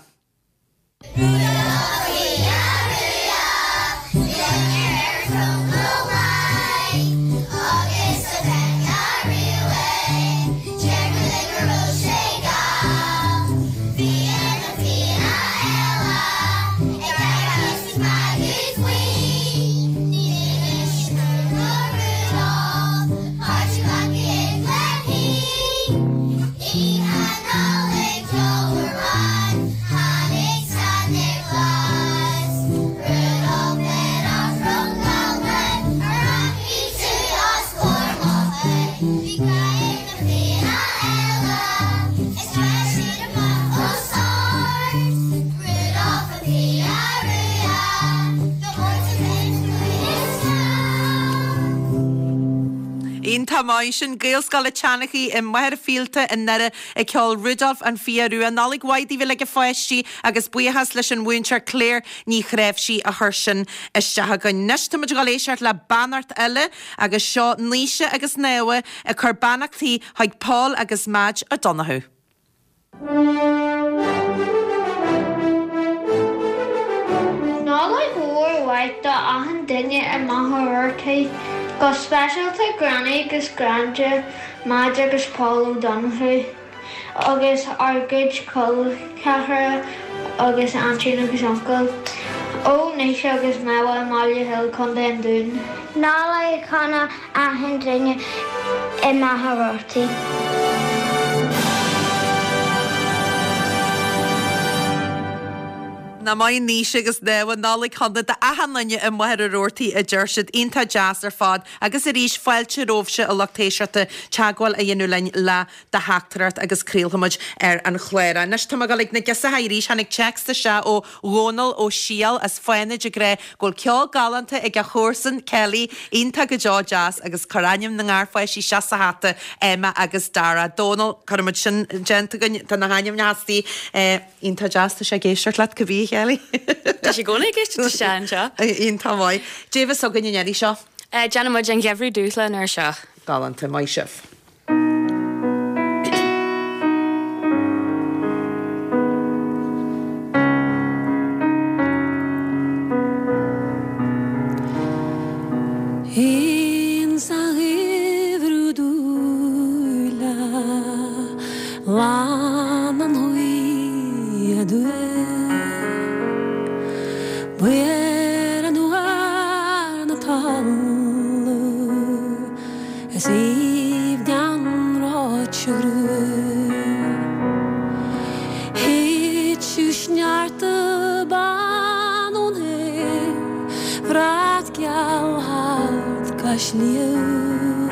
Speaker 1: Iontach maith sin. Gaelscoil a' tSeanchaí i Machaire Fíolta i nDoire ag ceol Rudolf an Fia Rua. Nollaig mhaith daoibh uilig a pháistí agus buíochas leis an mhúinteoir Claire Ní Chnáimhsí a chuir sin isteach againn. Anois tá muid ag dul éisteacht le beannacht eile agus seo Naoise agus Naomha ag cur beannachtaí chuig Paul agus Madge O'Donoghue.
Speaker 2: Nollaig mhór mhaith do achan duine i Machaire Rabhartaigh, go speisialta Granny agus Granda Madge agus Paul O'Donoghue agus ár gcuid col ceathracha agus aintín agus uncail. Ó Naoise agus Méabha i mBaile Hill, Co. an Dúin. Nollaig shona achan duine i Machaire Rabhartaigh.
Speaker 1: Nach maith Naoise agus Méabha, Nollaig shona d'achan duine i Machaire Rabhartaigh a deir siad. Iontach deas ar fad. Agus arís, fáilte romhaibhse a lucht éisteachta teagmháil a dhéanamh linn le do theachtaireacht agus craolfaimid ar an chlár é. Anois tá mé ag dul ag na girseacha arís. Tháinig téacs isteach ó Dhónal Ó Siadhail as Fánaid ag rá go bhfuil ceol galánta ag a chomharsan, Kelly, iontach go deo deas agus cuir ainm na ngarpháistí isteach sa hata, Emma agus Dara. Dónal, cuirfimid sin déanta againn, tá na hainmneacha istigh. Iontach deas, tá sé ag éisteacht leat, cibé, a Kelly.
Speaker 8: Tá sé i gcónaí ag éisteacht isteach anseo.
Speaker 1: Iontach maith. Dé bheas againn an iarraidh seo?
Speaker 8: Déanfaidh muid an Geimhreadh Dúshla an uair seo.
Speaker 1: Galánta, maith sibh.
Speaker 9: Ins an gheimhreadh dúile Lan an ghaoth aduaidh B'fhuaire an uair na talamh Is aoibhinn an ráite gruaig. Thiteadh sneachta bán ón aer, Brat geal thart cois Liath.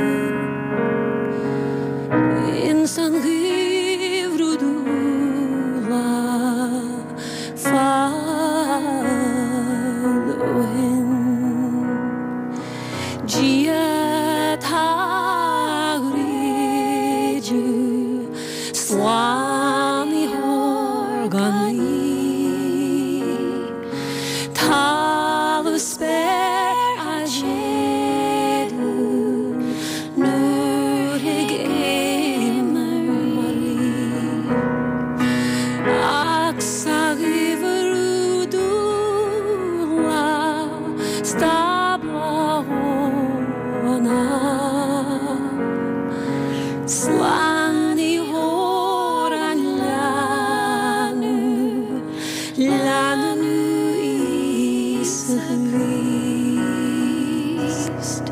Speaker 9: Ins an gheimhreadh dúile fad ó shin. Dia tá rídeadh Slánaitheoir gan í. Talamh spéir a séideadh nuair thig aonar mar í. Ach sa gheimhreadh dúile Stábla shona, Slánaitheoir an leanbh, leanbh Íosa Críost.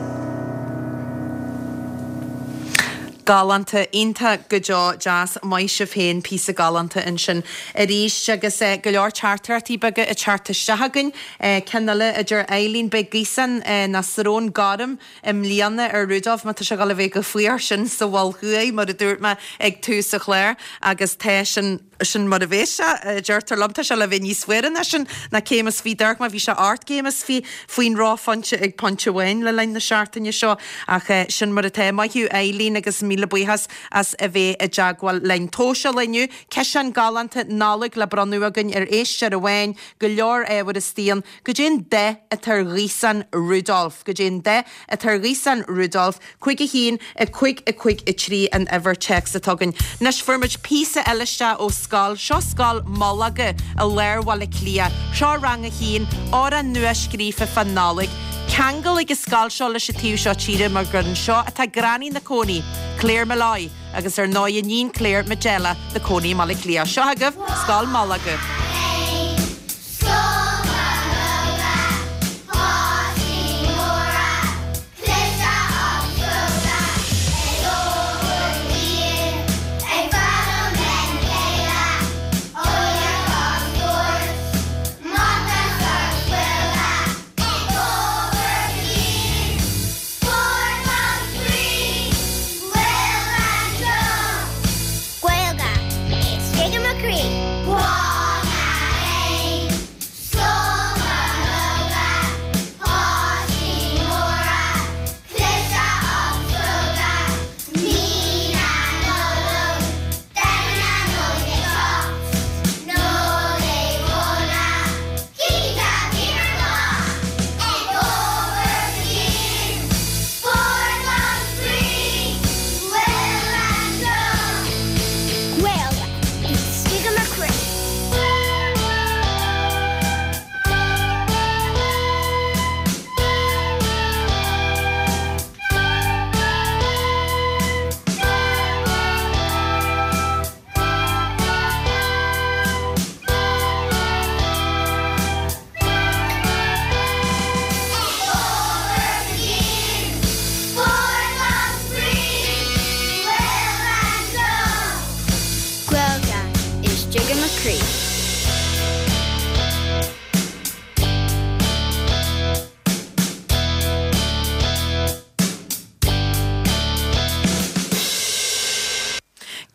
Speaker 1: Galánta, iontach go deo, deas, maith sibh féin, píosa galánta ansin arís agus go leor teachtaireachtaí beaga ag teacht isteach againn. Ceann eile a deir Eileen, beidh gaosán nó srón gorm i mbliana ar Rudolf má tá sé ag dul a bheith chomh fuar sin sa Mhol Thuaidh mar a dúirt mé ag tús an chláir agus tá sin sin mar a bheas sé, a deirtear liom. Tá sé le bheith níos fuaire ná sin, ná céim is fiche dorcha mar bhí sé ocht gcéim is fiche faoin reophointe ag pointe amháin le linn na seachtaine seo. Ach sin mar atá. Maith thú Eileen agus míle buíochas as a bheith i dteagmháil linn. Tomhas eile inniu, ciseán galánta Nollag le bronnadh againn ar éisteoir amháin, go leor ábhair istigh ann. Goidé an dath atá ar ghaosán Rudolf? Goidé an dath atá ar ghaosán Rudolf? 5 1 5 5 3 an uimhir téacs atá againn. Anois fuair muid píosa eile isteach ó scoil, seo Scoil Molaga i lár Bhaile Átha Cliath. Seo rang a haon, amhrán nua scríofa fán Nollaig. Ceangal ag an scoil seo leis an taobh seo tíre mar gur anseo atá Granny 'na cónaí, Claire Molloy, agus ar ndóigh iníon Claire, Majella, 'na cónaí i mBaile Átha Cliath. Seo agaibh Scoil Molaga.
Speaker 2: Scoil Molaga, páistí móra, Cliste agus cróga, ag obair dhian, ag foghlaim lena chéile, eolaíocht agus spórt, Mata 's agus Gaeilge, ag obair dian, spórt agus spraoi, Gaeilge anseo. Gaeilge, istigh i mo chroí. Grá na.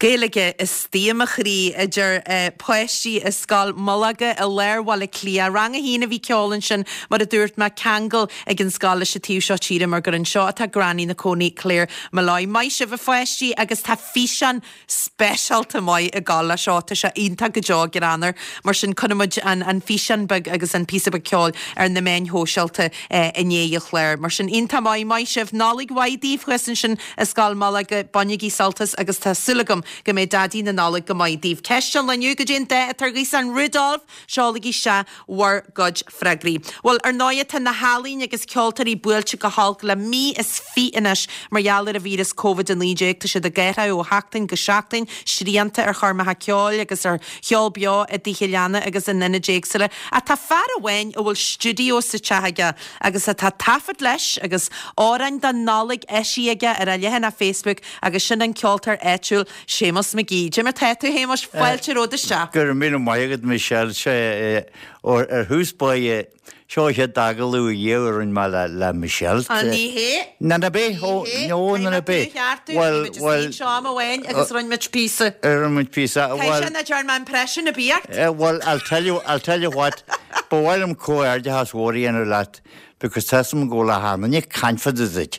Speaker 1: Gaeilge istigh i mo chroí, a deir páistí i Scoil Mhullóige i lár Bhaile Átha Cliath. Rang a haon a bhí ag ceol ansin, mar a dúirt mé, ceangal ag an scoil leis an taobh seo tíre mar gur anseo atá Granny 'na cónaí, Claire Molloy. Maith sibh a pháistí agus tá físeán speisialta maith ag gabháil leis seo, tá sé iontach go deo greannmhar. Mar sin cuirfidh muid an físeán beag agus an píosa beag ceoil ar na meáin shóisialta i ndiaidh an chláir. Mar sin iontach maith, maith sibh. Nollaig mhaith daoibh thuas ansin i Scoil Mhullóige, bainigí sult as agus tá súil agam go mbeidh Daidí na Nollag go maith daoibh. Ceist an lae inniu, goidé an dath atá ar ghaosán Rudolf? Seolaigí isteach bhur gcuid freagraí. Bhuel, ar ndóighe, tá na healaín agus ceoltóirí buailte go holc le mí is fiche anois mar gheall ar an víreas Covid-19. Tá siad ag athrú ó sheachtain go seachtain, srianta ar choirmeacha ceoil agus ar cheol beo i dtithe leanna agus in ionaid éagsúla. Ach tá fear amháin a bhfuil stiúideo sa teach aige agus atá taifead leis agus amhráin don Nollaig eisithe aige ar a leathanach Facebook agus sin an ceoltóir áitiúil Séamus McGee. Cad é mar tá tú, a Shéamuis? Fáilte romhat isteach.
Speaker 10: Go raibh míle maith agat, Michelle. Sé, ar thús báire, seo an chéad agallamh ariamh a rinne mé le Michelle.
Speaker 1: Á, ní hé.
Speaker 10: Ná ná bith, ó, nó, ná ná bith.
Speaker 1: Caithfidh mé tú a cheartú, bhí muid istigh anseo am amháin agus rinne muid píosa.
Speaker 10: Rinne muid píosa,
Speaker 1: bhuel. Caithfidh sé nach dtearn mé impression ar bith ort.
Speaker 10: Bhuel, I'll tell you, I'll tell you what, ba mhaith liom comhghairdeachas mhór a dhéanamh leat Because tá 'fhios a'm go bhfuil achan duine ag caint fá dtaobh duit.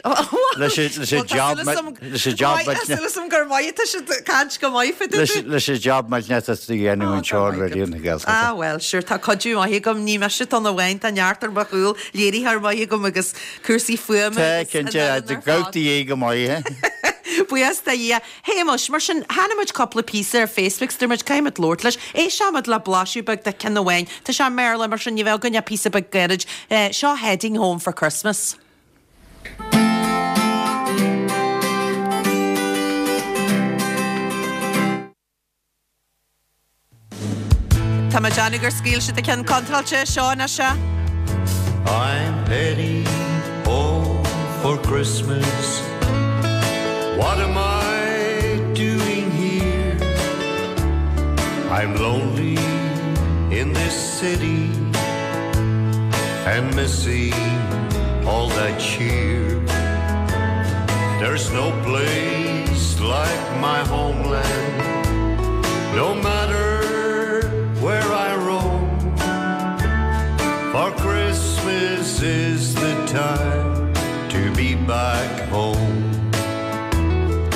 Speaker 10: Leis an job leis an job
Speaker 1: Tá súil agam gur maith atá siad ag caint go maith fá dtaobh duit.
Speaker 10: Leis an job millteanach atá tú a dhéanamh anseo ar Raidió na Gaeltachta.
Speaker 1: Ah bhuel, sure, tá cuidiú maith agam, ní mise atá ann amháin, tá neart ar mo chúl, léiritheoir maith agam agus cúrsaí fuaime
Speaker 10: Tá, agus an cinnte, fhoireann ar fad. gabhtaí é go maith.
Speaker 1: Buíochas do Dhia. Shéamuis, mar sin, chonaic muid cúpla píosa ar Facebook 's dúirt muid caithfidh muid labhairt leis. Éisteoidh muid le blaiseadh beag de ceann amháin. Tá sé i mBéarla, mar sin ní bheidh againn ach píosa beag gairid. Seo Heading Home for Christmas. Tá mé ag déanamh gur scaoil siad an ceann contráilte, seo anois é.
Speaker 5: I'm heading home for Christmas What am I doing here? I'm lonely in this city And missing all that cheer There's no place like my homeland No matter where I roam For Christmas is the time to be back home.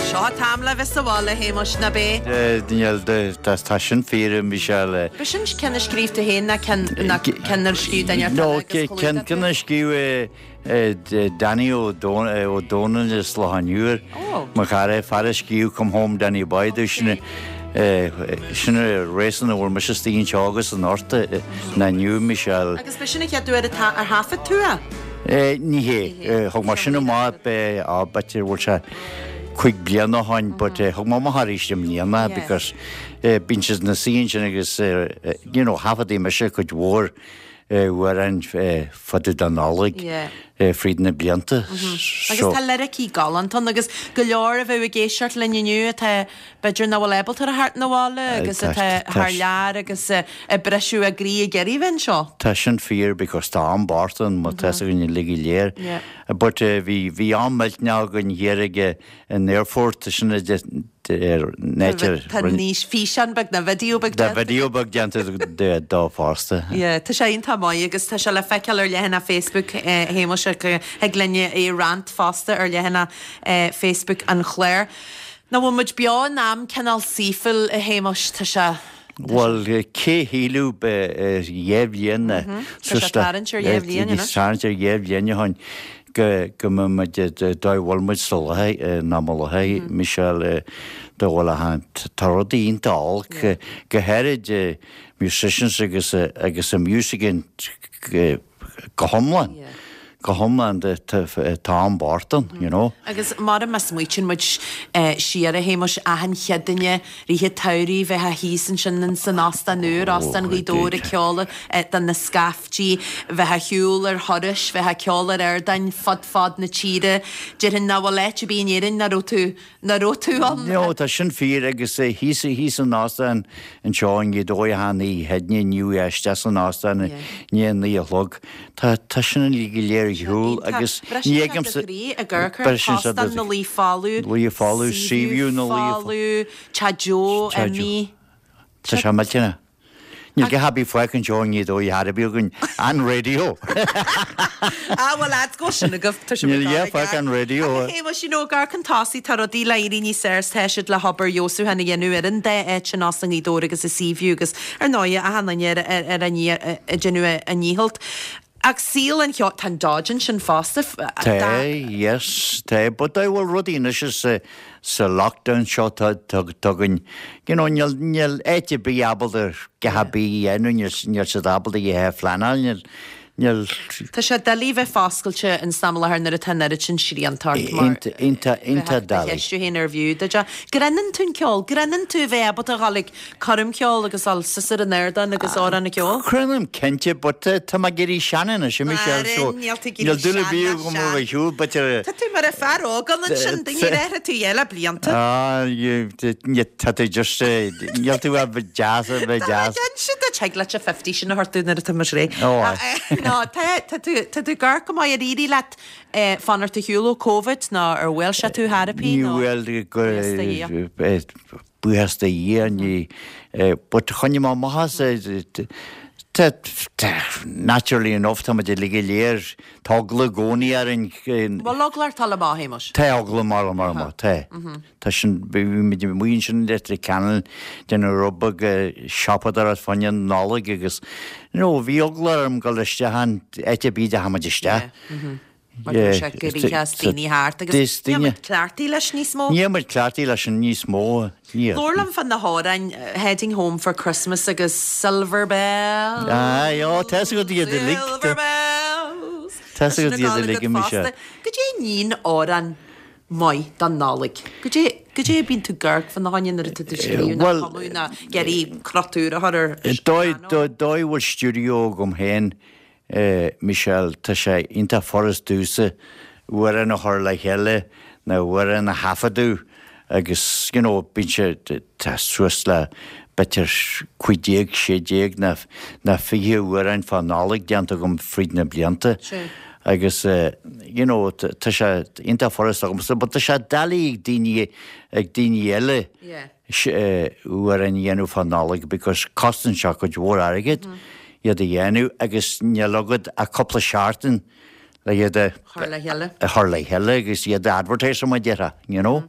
Speaker 1: Seo an t-am le bheith sa bhaile, a Shéamuis, ná b'é?
Speaker 10: Níl, tá sin fíor, a Michelle.
Speaker 1: B'shin ceann a scríobh tú féin ná ceann a scríobh duine eile agus
Speaker 10: No, ceann a scríobh Danny Ó Dónaill as Loch an Iúir, mo chara, fear a scríobh Come Home Danny Boy domh, sin sin an reason a bhfuil mise istigh anseo agus anocht ná inniu, Michelle.
Speaker 1: Agus b'shin an chéad uair atá ar thaifead tú
Speaker 10: é? Ní hé. Thug mé sin amach b'fhéidir bhfuil sé 5 bliana ó shoin but thug mé amach arís i mbliana because bíonn siad ina suí ansin agus you know thaifeadaigh mise cuid mhór amhráin fá dtaobh den Nollaig fríd na blianta.
Speaker 1: Agus tá liricí galánta ann agus go leor a bheadh ag éisteacht linn inniu atá b'fhéidir nach bhfuil ábalta a theacht 'na bhaile agus atá thar lear agus ag briseadh a gcroí ag iarraidh bheith anseo.
Speaker 10: Tá sin fíor because tá am bocht ann má tá 'fhios againn uilig go léir. But bhí bhí am millteanach againn thiar ag an aerfort sin a
Speaker 1: Tá níos físeán beag nó video beag
Speaker 10: déanta. Tá video beag déanta dó fosta.
Speaker 1: Yeah, tá sé iontach maith agus tá sé le feiceáil ar leathanach Facebook Shéamuis thig linn é a roinnt fosta ar leathanach Facebook an chláir. Nach bhfuil muid beo in am cineál saoithiúil a Shéamuis, tá sé.
Speaker 10: Bhuel, cé shílfeadh 2 bhliain
Speaker 1: Tá sé tarraingt ar 2 bhliain
Speaker 10: anois. Tarraingt ar 2 bhliain ó shin go mbeidh muid dá bhfuil muid sa láthair ná mo láthair, Michelle, dá bhfuil a tá rudaí iontach olc, go háirid musicians agus agus an music go hiomlán, go hiomlán tá am bocht ann, you know.
Speaker 1: Agus mar má smaoitíonn muid siar a Shéamuis, achan Chéadaoine, rith an tsamhraidh, bheifeá thíos ansin san óstán úr, Óstán Ghaoth Dobhair ag ceoladh do na scaiftí, bheifeá ar shiúl ar thurais, bheifeá ag ceol ar ardáin fud fad na tíre. Déarfainn nach bhfuil áit ar bith in Éirinn nach raibh tú Nach raibh tú ann?
Speaker 10: No, tá sin fíor agus thíos thíos san óstán anseo i nGaoth Dobhair achan oíche Chéadaoine inniu isteach san óstán i ndiaidh a naoi a chlog. Tá tá sin uilig go léir. ar shiúl agus ní fheicimse.
Speaker 1: Briseann sé do chroí. Óstán na Laoi folamh.
Speaker 10: Laoi folamh, Seaview na Laoi
Speaker 1: folamh, Teach Joe imithe.
Speaker 10: Tá sé millteanach. Níl a dhath ar bith fágtha anseo i nGaoth Dobhair ar bith againn an raidió.
Speaker 1: Ah bhuel lads go sin agaibh tá
Speaker 10: Níl a dhath fágtha an raidió.
Speaker 1: Ach a Shéamais you know ag amharc chun tosaigh tá rudaí le éirí níos fearr is tá siad le hobair fheabhsúcháin a dhéanamh ar an dá áit sin Óstán Ghaoth Dobhair agus an Seaview agus ar ndóigh achan duine ar ar a ag déanamh a ndícheall. Ach saol an cheoil, tá an Dodge ansin fosta.
Speaker 10: Tá, yes, tá, but tá, bhuel rudaí anois is sa lockdown seo tá againn, you know, níl, níl áit ar bith ábalta a dhath ar bith a dhéanamh, níl, níl siad ábalta a dhath a phleanáil, níl, níl.
Speaker 1: Tá sé doiligh bheith foscailte in san am i láthair nuair atá an oiread sin srianta ort mar
Speaker 10: Iontach, iontach, iontach
Speaker 1: bheadh do
Speaker 10: doiligh.
Speaker 1: cheistiú féin arbh fhiú duit é. Grinneann tú an ceol, grinneann tú a bheith ábalta a dhul ag coirmcheoil agus dul suas ar an ardán agus amhrán a cheol?
Speaker 10: Grinnim cinnte, but tá mé ag éirí sean anois, a Michelle, so
Speaker 1: Níl tú ag éirí
Speaker 10: níl dúil ar
Speaker 1: sean,
Speaker 10: bith
Speaker 1: ná
Speaker 10: agam
Speaker 1: sean.
Speaker 10: a bheith ar shiúl, but
Speaker 1: Tá tú mar an fear óg ann ansin, duine ar athraigh tú eile blianta.
Speaker 10: Ah, tá tú just, níl tú a bheith deas, a bheith
Speaker 1: Tá
Speaker 10: deas.
Speaker 1: mé cinnte duit, thig leat a 50 sin a thabhairt nuair atá muid réidh.
Speaker 10: Ó, aye.
Speaker 1: No, tá, tá tú, tá tú ag amharc go maith ar éirigh leat fanacht ar shiúl ó Covid nó ar bhuail sé tú thar a pí
Speaker 10: Ní
Speaker 1: nó
Speaker 10: bhuail go,
Speaker 1: Buíochas do Dhia.
Speaker 10: Buíochas do Dhia, ní, but choinnigh mé amach as, tá, naturally enough, tá muid uilig go léir, tá eagla i gcónaí orainn.
Speaker 1: Bhfuil eagla ort dul amach, a Shéamais?
Speaker 10: Tá eagla mar mar mar, tá. Tá sin, bhí muid amuigh ansin i Leitir Ceanainn, déanamh rud beag siopadóireacht fá choinne Nollag agus, you know, bhí eagla orm dul isteach in áit ar bith a dteachaidh muid isteach.
Speaker 1: Mar go raibh sé go rícheas daoine thart agus níl muid cleachtaithe leis níos mó.
Speaker 10: Níl muid cleachtaithe leis an níos mó.
Speaker 1: Labhair liom fá na hamhráin Heading Home for Christmas agus Silver Bells.
Speaker 10: Aye, ó, tá 'fhios agat iad uilig.
Speaker 1: Silver Bells.
Speaker 10: Tá 'fhios agat iad uilig, a Michelle.
Speaker 1: Goidé a níonn amhrán maith don Nollaig? Goidé, goidé a bíonn tú ag amharc fá na choinne nuair atá tú ag scríobh nó cumadh nó ag iarraidh crot úr a chur ar
Speaker 10: Dóigh, dóigh a bhfuil stiúideo agam féin Michelle, Tá sé iontach furast domhsa amhrán a chur le chéile nó amhrán a thaifeadadh agus you know bíonn sé, tá suas le b'fhéidir 15, 16 nó nó 20 amhrán fá Nollaig déanta agam fríd na blianta agus you know tá sé iontach furast agamsa but tá sé doiligh ag daoine ag daoine eile. amhrán a dhéanamh fá Nollaig because cosnaíonn sé cuid mhór airgid iad a dhéanamh agus níl agat ach cúpla seachtain le iad a
Speaker 1: chur le chéile.
Speaker 10: a chur le chéile agus iad a advertise mar a déarfá, you know.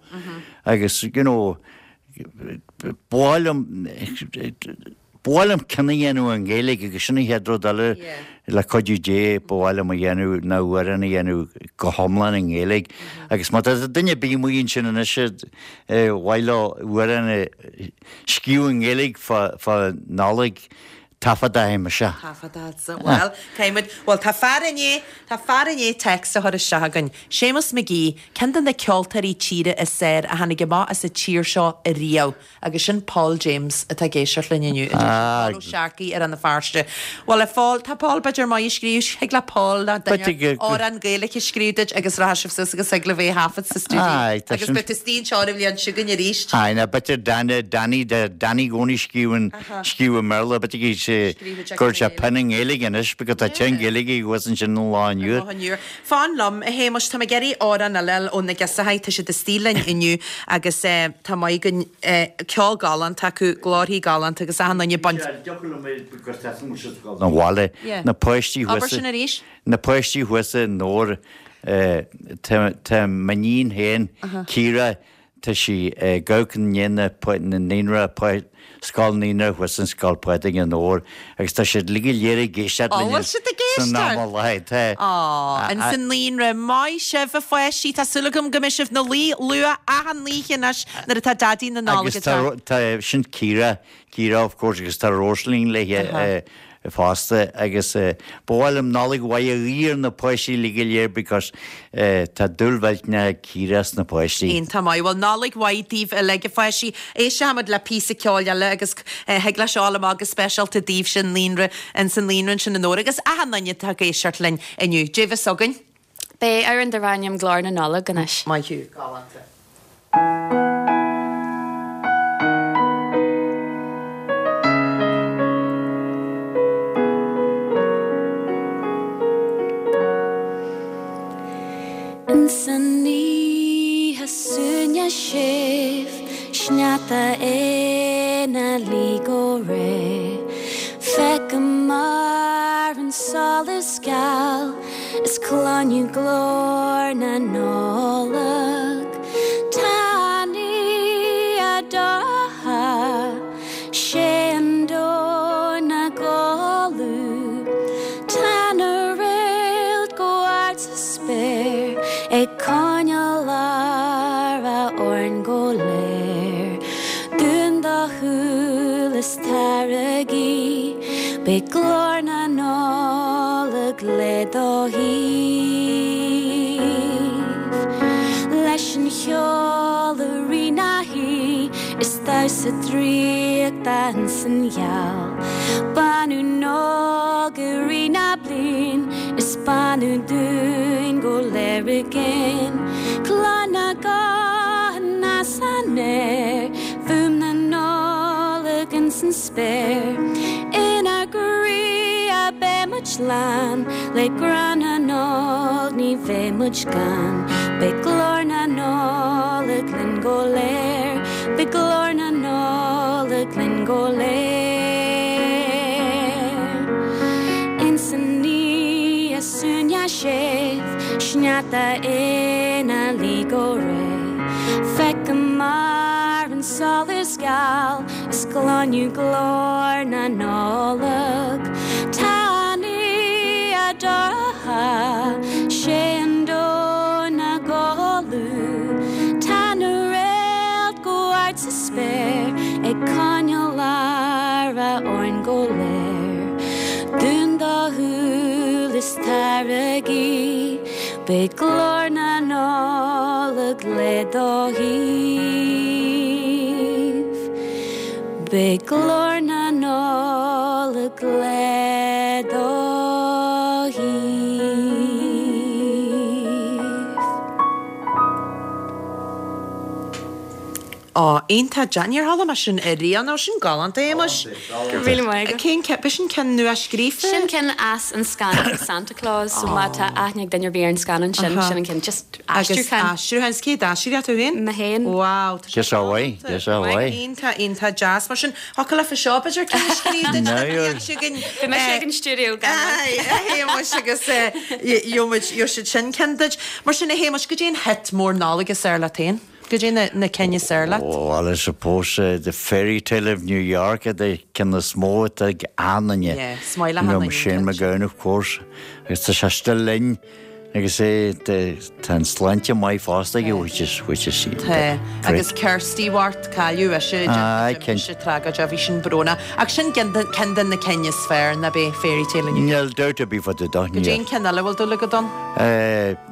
Speaker 10: Agus, you know, ba mhaith liom, Ba mhaith liom ceann a dhéanamh i nGaeilge agus sin an chéad rud eile le cuidiú Dé ba mhaith liom a dhéanamh ná amhrán a dhéanamh go hiomlán i nGaeilge agus má tá duine ar bith amuigh ansin anois ar mhaith leo amhrán a scríobh i nGaeilge fá Nollaig, taifeadfaidh mise.
Speaker 1: Taifeadfadsa. Bhuel, caithfidh muid, bhuel tá fear i ndiaidh, tá fear i ndiaidh text a chur isteach againn. Séamus McGee, ceann de na ceoltóirí tíre is fearr a tháinig amach as an tír seo riamh. Agus sin Paul James atá ag éisteacht linn inniu, a deir Paul Ó Searcaigh i Rann na Feirste. Bhuel, a Phóil, tá Paul b'fhéidir maith ag scríobh, thig le Paul nó duine amhrán Gaeilge a scríobh duit agus rachaidh sibh suas agus thig libh é a thaifead sa stiúideo agus beidh tú istigh anseo an bhliain seo chugainn arís.
Speaker 10: Aye, nó b'fhéidir Danny, Danny, Danny i gcónaí scríobhann, scríobh i mBéarla, b'fhéidir go sé, go gcuirfidh sé pinn i nGaeilge anois because tá teann Gaeilge thuas ansin an lá inniu.
Speaker 1: An lá inniu. Fan liom, a Shéamais, tá mé ag iarraidh amhrán eile a fháil ó na Girseachaí, tá siad istigh linn inniu agus tá maith againn, ceol galánta acu, glórthaí galánta agus achan duine ag baint.
Speaker 10: Na bhaile, na páistí thuas.
Speaker 1: Abair sin arís.
Speaker 10: Na páistí thuas i nDobhar, tá m'iníon féin, Ciara, Tá sí ag amharc i ndiaidh na naíonra, scoil naíonra thuas in Scoil Phádraig i nDobhar agus tá siad uilig go léir ag éisteacht
Speaker 1: linn bhfuil siad ag
Speaker 10: san am i láthair. Tá.
Speaker 1: Á, ins an naíonra. Maith sibh a pháistí, tá súil agam go mbeidh sibh 'na luí luath achan oíche anois nuair atá Daidí na Nollag
Speaker 10: Agus tá, tá, sin Ciara, Ciara of course agus tá Róisín léi fosta agus ba mhaith liom Nollaig mhaith a ghuí ar na páistí uilig go léir because tá dúil mhillteanach ag Ciara sna páistí.
Speaker 1: Iontach maith. Bhuel Nollaig mhaith daoibh uilig a pháistí. Éistfimid le píosa ceoil eile agus thig leis seo a dhul amach go speisialta daoibhse naíonra, ins an naíonra ansin i nDobhar agus achan duine atá ag éisteacht linn inniu. Dé bheas againn.
Speaker 8: Beidh amhrán darb ainm Glór na Nollag anois.
Speaker 1: Maith thú. Galánta.
Speaker 9: Ins an oíche suaimhneach séimh, sneachta ina luí go réidh, feicim ar an solas geal is cluinim glór na Nollag. Tá an oíche dorcha, 'sé an domhan 'na chodladh, tá na réalta go hard sa spéir ag coinneáil aire orainn go léir. Dún do shúil is tar ag guí, beidh glór na Nollag le do thaobh. Leis an cheol i rith na hoíche is damhsa draíochta ins an gheal. Beannú 'nocht i rith na bliain is beannú dúinn go léir i gcéin. Cluin na guthanna san aer, fuaim na Nollag ins an spéir. Inár gcroíthe beidh muid lán le grá na Nollag, ní bheidh muid gann. Beidh glór na Nollag linn go léir, beidh glór na Nollag linn go léir. Ins an oíche suaimhneach séimh, sneachta ina luí go réidh, feicim ar an solas geal, Is cluinim glór na Nollag. Tá an oíche dorcha, 'sé an domhan 'na chodladh. Tá na réalta go hard sa spéir ag coinneáil aire orainn go léir. Dún do shúil is tar ag guí. Beidh glór na Nollag le do thaobh. Beidh glór na Nollag le do thaobh.
Speaker 1: Ó, iontach deas. Níor chuala mé sin ariamh, nó sin galánta, a Shéamais.
Speaker 8: Go raibh míle maith agat.
Speaker 1: Cén ceann, b'shin ceann nua-scríofa?
Speaker 8: Sin ceann as an scannán Santa Claus, so má tá aithne ag duine ar bith ar an scannán sin, sin an ceann, just aistriúchán.
Speaker 1: Agus aistriúchán, is cé d'aistrigh tú féin?
Speaker 8: Mé féin.
Speaker 1: Wow, tá sé
Speaker 10: Just away, just away.
Speaker 1: Iontach, iontach deas. Mar sin, thiocfadh leat seo, b'fhéidir, ceann a scríobh duit an bhliain seo chugainn.
Speaker 8: Beidh mise ag an stiúideo gan dabht.
Speaker 1: Aye, a Shéamais, agus gheobhaidh siad sin ceann duit. Mar sin, a Shéamais, goidé an hit mór Nollag is fearr leat féin? Goidé na na cinn is fearr leat?
Speaker 10: Well, I suppose The Fairy Tale of New York an ceann is mó atá ag achan duine.
Speaker 1: Yeah, is maith le achan duine.
Speaker 10: Shane MacGowan, of course. Agus tá sé still linn agus é tá an sláinte maith fosta aige, which is, which is
Speaker 1: Tá, agus Kirsty Bhart, cailleadh ise,
Speaker 10: Aye, cinnte.
Speaker 1: sé tragóideach, bhí sin brónach. Ach sin ceann de na cinn is fearr, ná b'é Fairy Tale of New
Speaker 10: York. Níl doubt ar bith fá dtaobh de,
Speaker 1: níl. Goidé an ceann eile a bhfuil dúil agat ann?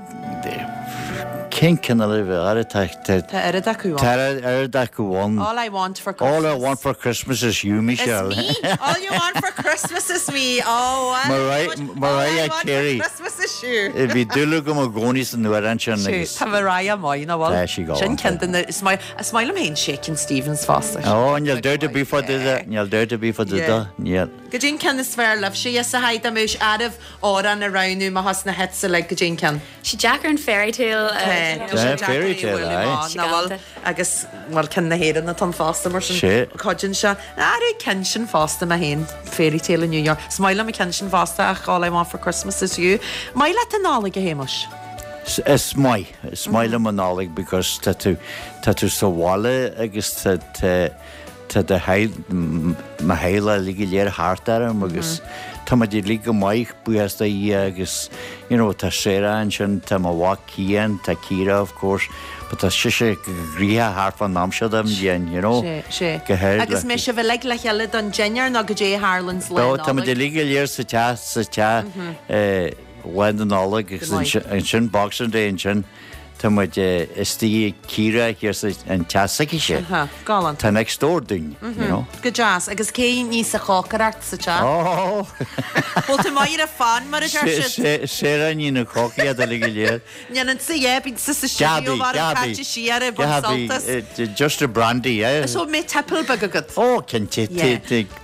Speaker 10: Cén cineál a bheadh air? Tá
Speaker 1: Tá oiread acu
Speaker 10: ann. Tá oiread acu ann.
Speaker 1: All I want for Christmas.
Speaker 10: All I want for Christmas is you, Michelle.
Speaker 1: Is me. All you want for Christmas is me. Oh,
Speaker 10: well. Mariah Carey.
Speaker 1: Christmas is you.
Speaker 10: Bhí dúil agam i gcónaí san amhrán sin agus.
Speaker 1: Tá Mariah maith, nach bhfuil?
Speaker 10: Tá sí galánta.
Speaker 1: Sin ceann de na, is maith, is maith liom féin Shakin' Stevens fosta.
Speaker 10: Oh, níl doubt ar bith fá dtaobh de, níl doubt ar bith fá dtaobh de, níl.
Speaker 1: Goidé an ceann is fearr libhse, yes, a thaidhg, dá mbeadh oraibh amhrán a roghnú amach as na hits uilig, goidé an ceann.
Speaker 8: Sé deacair an fairy tale a.
Speaker 1: Tá sé deacair
Speaker 10: Fairy
Speaker 1: é a
Speaker 10: tale,
Speaker 1: bhualadh
Speaker 10: aye.
Speaker 1: amach, nach bhfuil? Agus, bhuel, ceann na hÉireann atá ann fosta, mar sin,
Speaker 10: Sé.
Speaker 1: cuidíonn sé. Ar an ceann sin fosta mé féin, Fairy Tale in New York. Is maith liom an ceann sin fosta ach All I Want for Christmas is You. Maith leat an Nollaig, a Shéamais?
Speaker 10: Is maith. Is maith liom an Nollaig because tá tú, tá tú sa bhaile agus tá, tá, Tá do theaghlach, mo theaghlach uilig go léir thart orm agus tá muid uilig go maith, buíochas do Dhia agus you know tá Sarah ansin, tá mo mhac Cian, tá Ciara of course but tá sise go gnoitheach thart fán am seo den bhliain, you know.
Speaker 1: Sé, sé.
Speaker 10: Go háirid
Speaker 1: Agus
Speaker 10: le.
Speaker 1: mbeidh sibh uilig le chéile don dinnéar nó goidé a tharlaíonn lá
Speaker 10: No, tá muid
Speaker 1: Nollag?
Speaker 10: uilig go léir sa teach, sa teach eh lá na Nollag agus
Speaker 1: Go maith.
Speaker 10: ansin Boxing Day ansin. Tá muid istigh ag Ciara thiar sa an teach s'aicise.
Speaker 1: Aha, galánta.
Speaker 10: Tá next door dúinn, you know.
Speaker 1: Go deas. Agus cé níos a chócaireacht sa teach?
Speaker 10: Oh!
Speaker 1: Bhfuil tú maith ar an phan, mar a deir siad?
Speaker 10: Sarah ní na cócaí uilig go léir.
Speaker 1: Ndéanann sa yeah, bíonn sa sa stiúideo
Speaker 10: Gabi,
Speaker 1: mar an
Speaker 10: Gabi,
Speaker 1: caite siar ag baint
Speaker 10: Gabi,
Speaker 1: sultas.
Speaker 10: just a brandy, eh?
Speaker 1: So mbeidh tipple beag agat?
Speaker 10: Oh, cinnte,
Speaker 1: Yeah.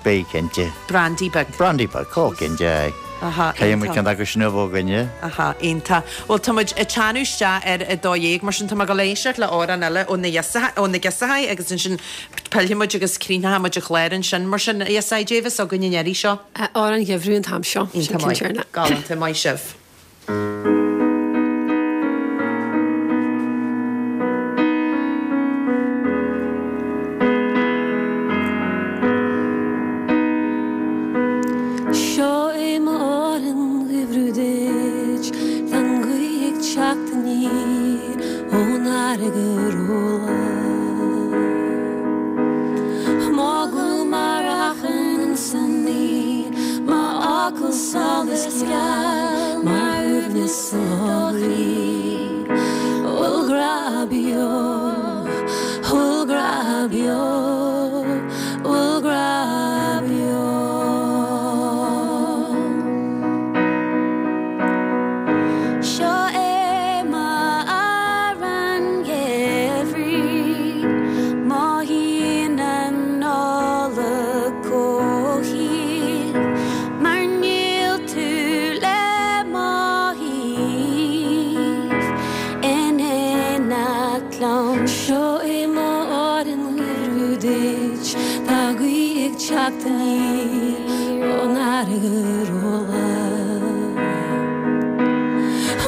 Speaker 10: beidh cinnte.
Speaker 1: Brandy beag.
Speaker 10: Brandy beag, oh, cinnte, aye.
Speaker 1: Aha,
Speaker 10: Caithfidh muid
Speaker 1: iontach.
Speaker 10: ceann acu sin a bheith againne.
Speaker 1: Aha, iontach. Bhuel, tá muid ag teannadh isteach ar a 12, mar sin tá mé ag dul éisteacht le amhrán eile ó na ó na Giosachaí agus ansin pillfidh muid agus críochnóidh muid an clár ansin. Mar sin, a Ghiosachaí, caidé a bheas againn an iarraidh seo?
Speaker 11: Amhrán an Gheimhridh an t-am seo. Sin
Speaker 1: Iontach maith. Galánta, maith sibh.
Speaker 11: Seo é m'amhrán gheimhridh duit, Tá an ghaoth ag teacht aniar ón fharraige róghlan. M'fhocal mar achrann insan ngaoth, M'fhocal solas geal mar shuaimhneas i do chroí. Bhfuil grá beo, bhfuil grá beo, bhfuil grá beo.
Speaker 9: Seo é m'amhrán gheimhridh, mothaíonn an Nollaig chomh haoibhinn mar níl tú le mo thaobh in éineacht liom.
Speaker 11: Seo é m'amhrán gheimhridh duit, tá gaoth ag teacht aniar ón fharraige róghlan.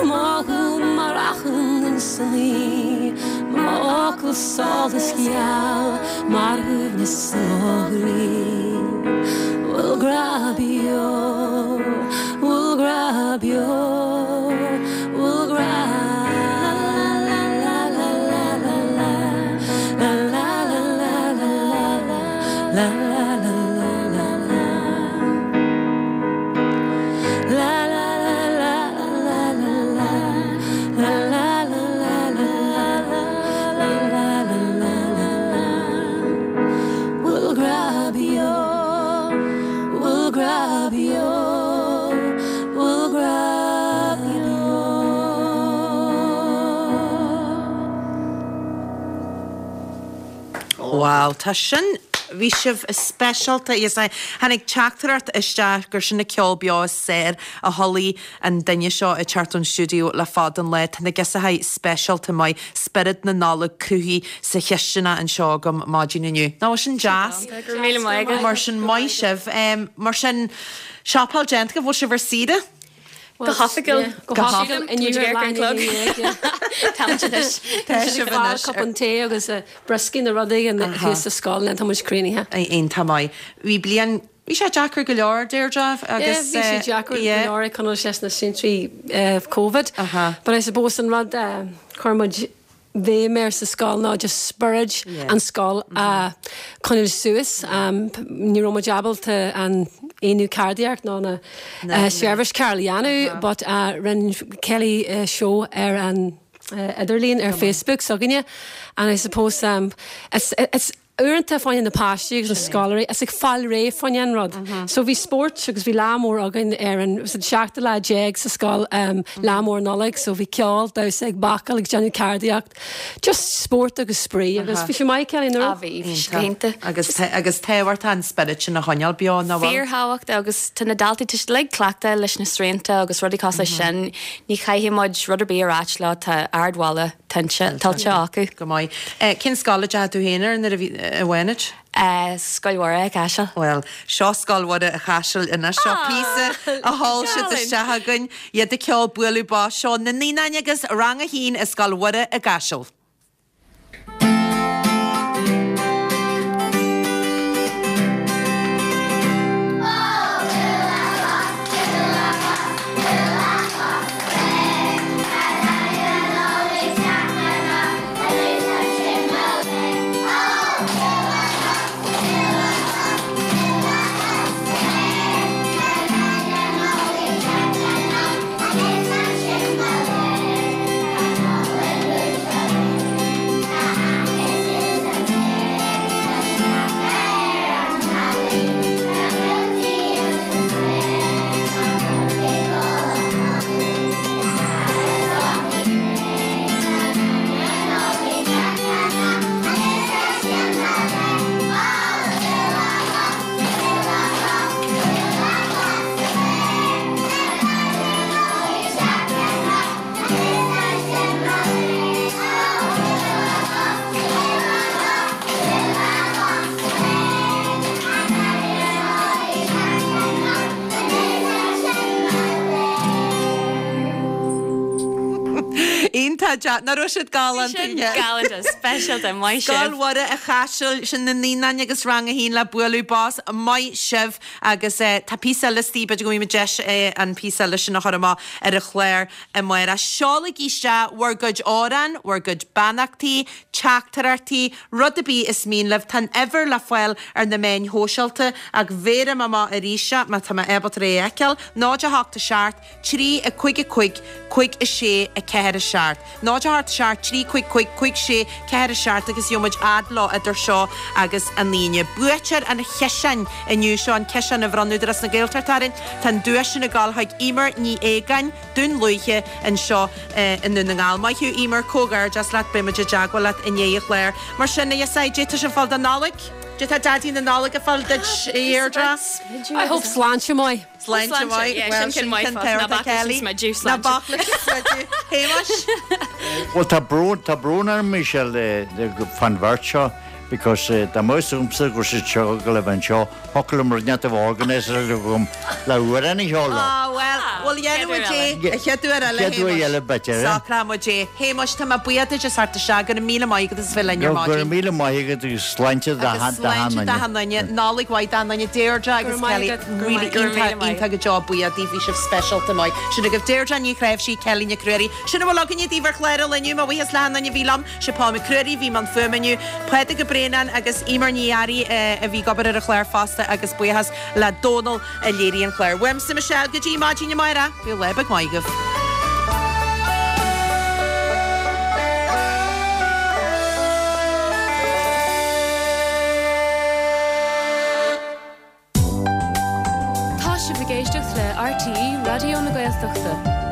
Speaker 11: M'fhocal mar achrann insan ngaoth, m'fhocal solas geal mar shuaimhneas i mo chroí. Bhfuil grá beo, bhfuil grá beo, bhfuil grá la la la la la la la la la la la la la la la la la la La la la la la la la la la la la la la la la la la la la Bhfuil grá beo, bhfuil grá beo, bhfuil grá beo.
Speaker 1: Wow, tá sin, bhí sibh speisialta, yes, I, tháinig teachtaireacht isteach gur sin an ceol beo is fearr a chuala an duine seo ag teacht ón stiúideo le fada an lá. Tá na Giosachaí speisialta maith, spiorad na Nollag cruthaithe sa chisteanach anseo agam maidin inniu. Nach bhfuil sin deas?
Speaker 8: Go raibh míle maith agat.
Speaker 1: Mar sin, maith sibh. Mar sin, siopáil déanta agaibh, bhfuil sibh ar saoire?
Speaker 8: Go hoifigiúil.
Speaker 11: Go hoifigiúil. Inniu ar leath i ndiaidh a 11.
Speaker 8: Táimid anois.
Speaker 1: Tá sibh anois.
Speaker 11: Cupán tae agus brioscaí nó rud éigin thuas sa scoil and tá muid críochnaithe.
Speaker 1: Iontach maith. Bhí bliain, bhí sé deacair go leor, Deirdre,
Speaker 11: agus. Yeah, bhí sé deacair go leor ag coinneáil leis na srianta Covid. But I suppose an rud a chuir muid bhéim air sa scoil ná just spiorad an scoil a choinneáil suas. Ní raibh muid ábalta an aonú ceardaíocht ná na seirbhís cearúl a dhéanamh but rinne Kelly seó ar an idirlíon ar Facebook s'againne and I suppose it's it's Uaireanta fá choinne na páistí agus na scoláirí is ag fáil réidh fá choinne an rud. So bhí spóirt agus bhí lá mór againn ar an, was it seachtú lá déag sa scoil, lá mór Nollag, so bhí ceol, damhsa ag bácáil ag déanamh ceardaíocht, just spórt agus spraoi agus bhí sé maith Kelly, nach raibh?
Speaker 8: Ah bhí, bhí sé go hiontach.
Speaker 1: Agus agus tábhachtach an spiorad sin a choinneáil beo, nach bhfuil?
Speaker 8: Fíorthábhachtach agus tá na daltaí, tá siad uilig cleachta leis na srianta agus rudaí cosúil leis sin, ní chaithfidh muid rud ar bith a ráit leo, tá ardmholadh. Tuillte acu.
Speaker 1: Go maith. Cén scoil a dteachaigh tú féin air nuair a bhí, a Bhánait?
Speaker 8: Scoil Mhuire i gCaiseal.
Speaker 1: Bhuel, seo Scoil Mhuire i Chaiseal anois. Seo píosa a sheol siad isteach againn. Iad ag ceol Bualadh Bos. Seo na Naíonáin agus Rang 1 i Scoil Mhuire i gCaiseal. An-deas. Nach raibh siad galánta?
Speaker 8: Sin galánta, speisialta, maith sibh.
Speaker 1: Scoil Mhuire an Chaisil, sin na naíonáin agus rang a haon le bualadh bos. Maith sibh. Agus tá píosa eile istigh, b'fhéidir go bhfaighidh muid deis an píosa eile sin a chur amach ar an chlár amárach. Seolaigí isteach bhur gcuid amhrán, bhur gcuid beannachtaí, teachtaireachtaí, rud ar bith is mian libh. Tá an uimhir le fáil ar na meáin shóisialta ach bhéarfaidh mé amach arís é má tá mé ábalta é a fheiceáil, 0 8 7 3 5 5 5 6 4 7. 0 8 7 3 5 5 5 6 4 7 agus gheobhaidh muid fhad leo idir seo agus an Aoine. Buaiteoir an chiseáin inniu seo, an ciseán a bhronn Údarás na Gaeltachta orainn. Tá an duais sin ag dul chuig Emer Ní Aogáin, Dún Lúiche, anseo i nDún na nGall. Maith thú Emer, comhghairdeas leat, beidh muid i dteagmháil leat i ndiaidh an chláir. Mar sin, a Dheasai, caidé tá sibh ag fáil don Nollaig? Caidé tá Daidí na Nollag ag fáil duit, a Dheirdre?
Speaker 11: I hope sláinte maith.
Speaker 1: Sláinte mhaith.
Speaker 8: Yeah, sin ceann maith fós. Ná bac leis an smideadh,
Speaker 1: sláinte. Ná bac leis an smideadh. Shéamais?
Speaker 10: Bhuel, tá brón, tá brón orm, Michelle, fán bheirt seo because dá mbeadh fhios agamsa go raibh siad seo ag gabháil a bheith anseo, thiocfadh liom rud inteacht a bheith organiser agam le amhrán a cheol leo.
Speaker 1: Ah, bhuel, bhuel, dhéanfaidh muid é an chéad uair eile,
Speaker 10: Chéad uair eile, b'fhéidir, eh?
Speaker 1: Socróidh muid é. Shéamais, tá mé buíoch duit as theacht isteach. Go raibh míle maith agat as bheith linn ar
Speaker 10: Go raibh
Speaker 1: maidin.
Speaker 10: míle maith agat agus sláinte do
Speaker 1: Agus sláinte
Speaker 10: achan
Speaker 1: do achan
Speaker 10: duine.
Speaker 1: duine. Nollaig mhaith d'achan duine. Deirdre agus Kelly, really iontach, iontach go deo buíoch daoibh, bhí sibh speisialta maith. Sin agaibh Deirdre Ní Chnáimhsí, Kelly Nic Ruairí. Sin a bhfuil againne daoibh ar chlár an lae inniu. Mo bhuíochas le achan duine a bhí liom. Sé Paul Mac Ruairí a bhí i mbun fuaime inniu, Pádraig Ó Braonáin agus Emer Ní Fhearraigh a bhí ag obair ar an chlár fosta agus buíochas le Dónal a léirigh an clár. Uaimse Michelle go dtí maidin amárach, bíodh lá beag maith agaibh.
Speaker 9: Tá sibh ag éisteacht le RTÉ Raidió na Gaeltachta.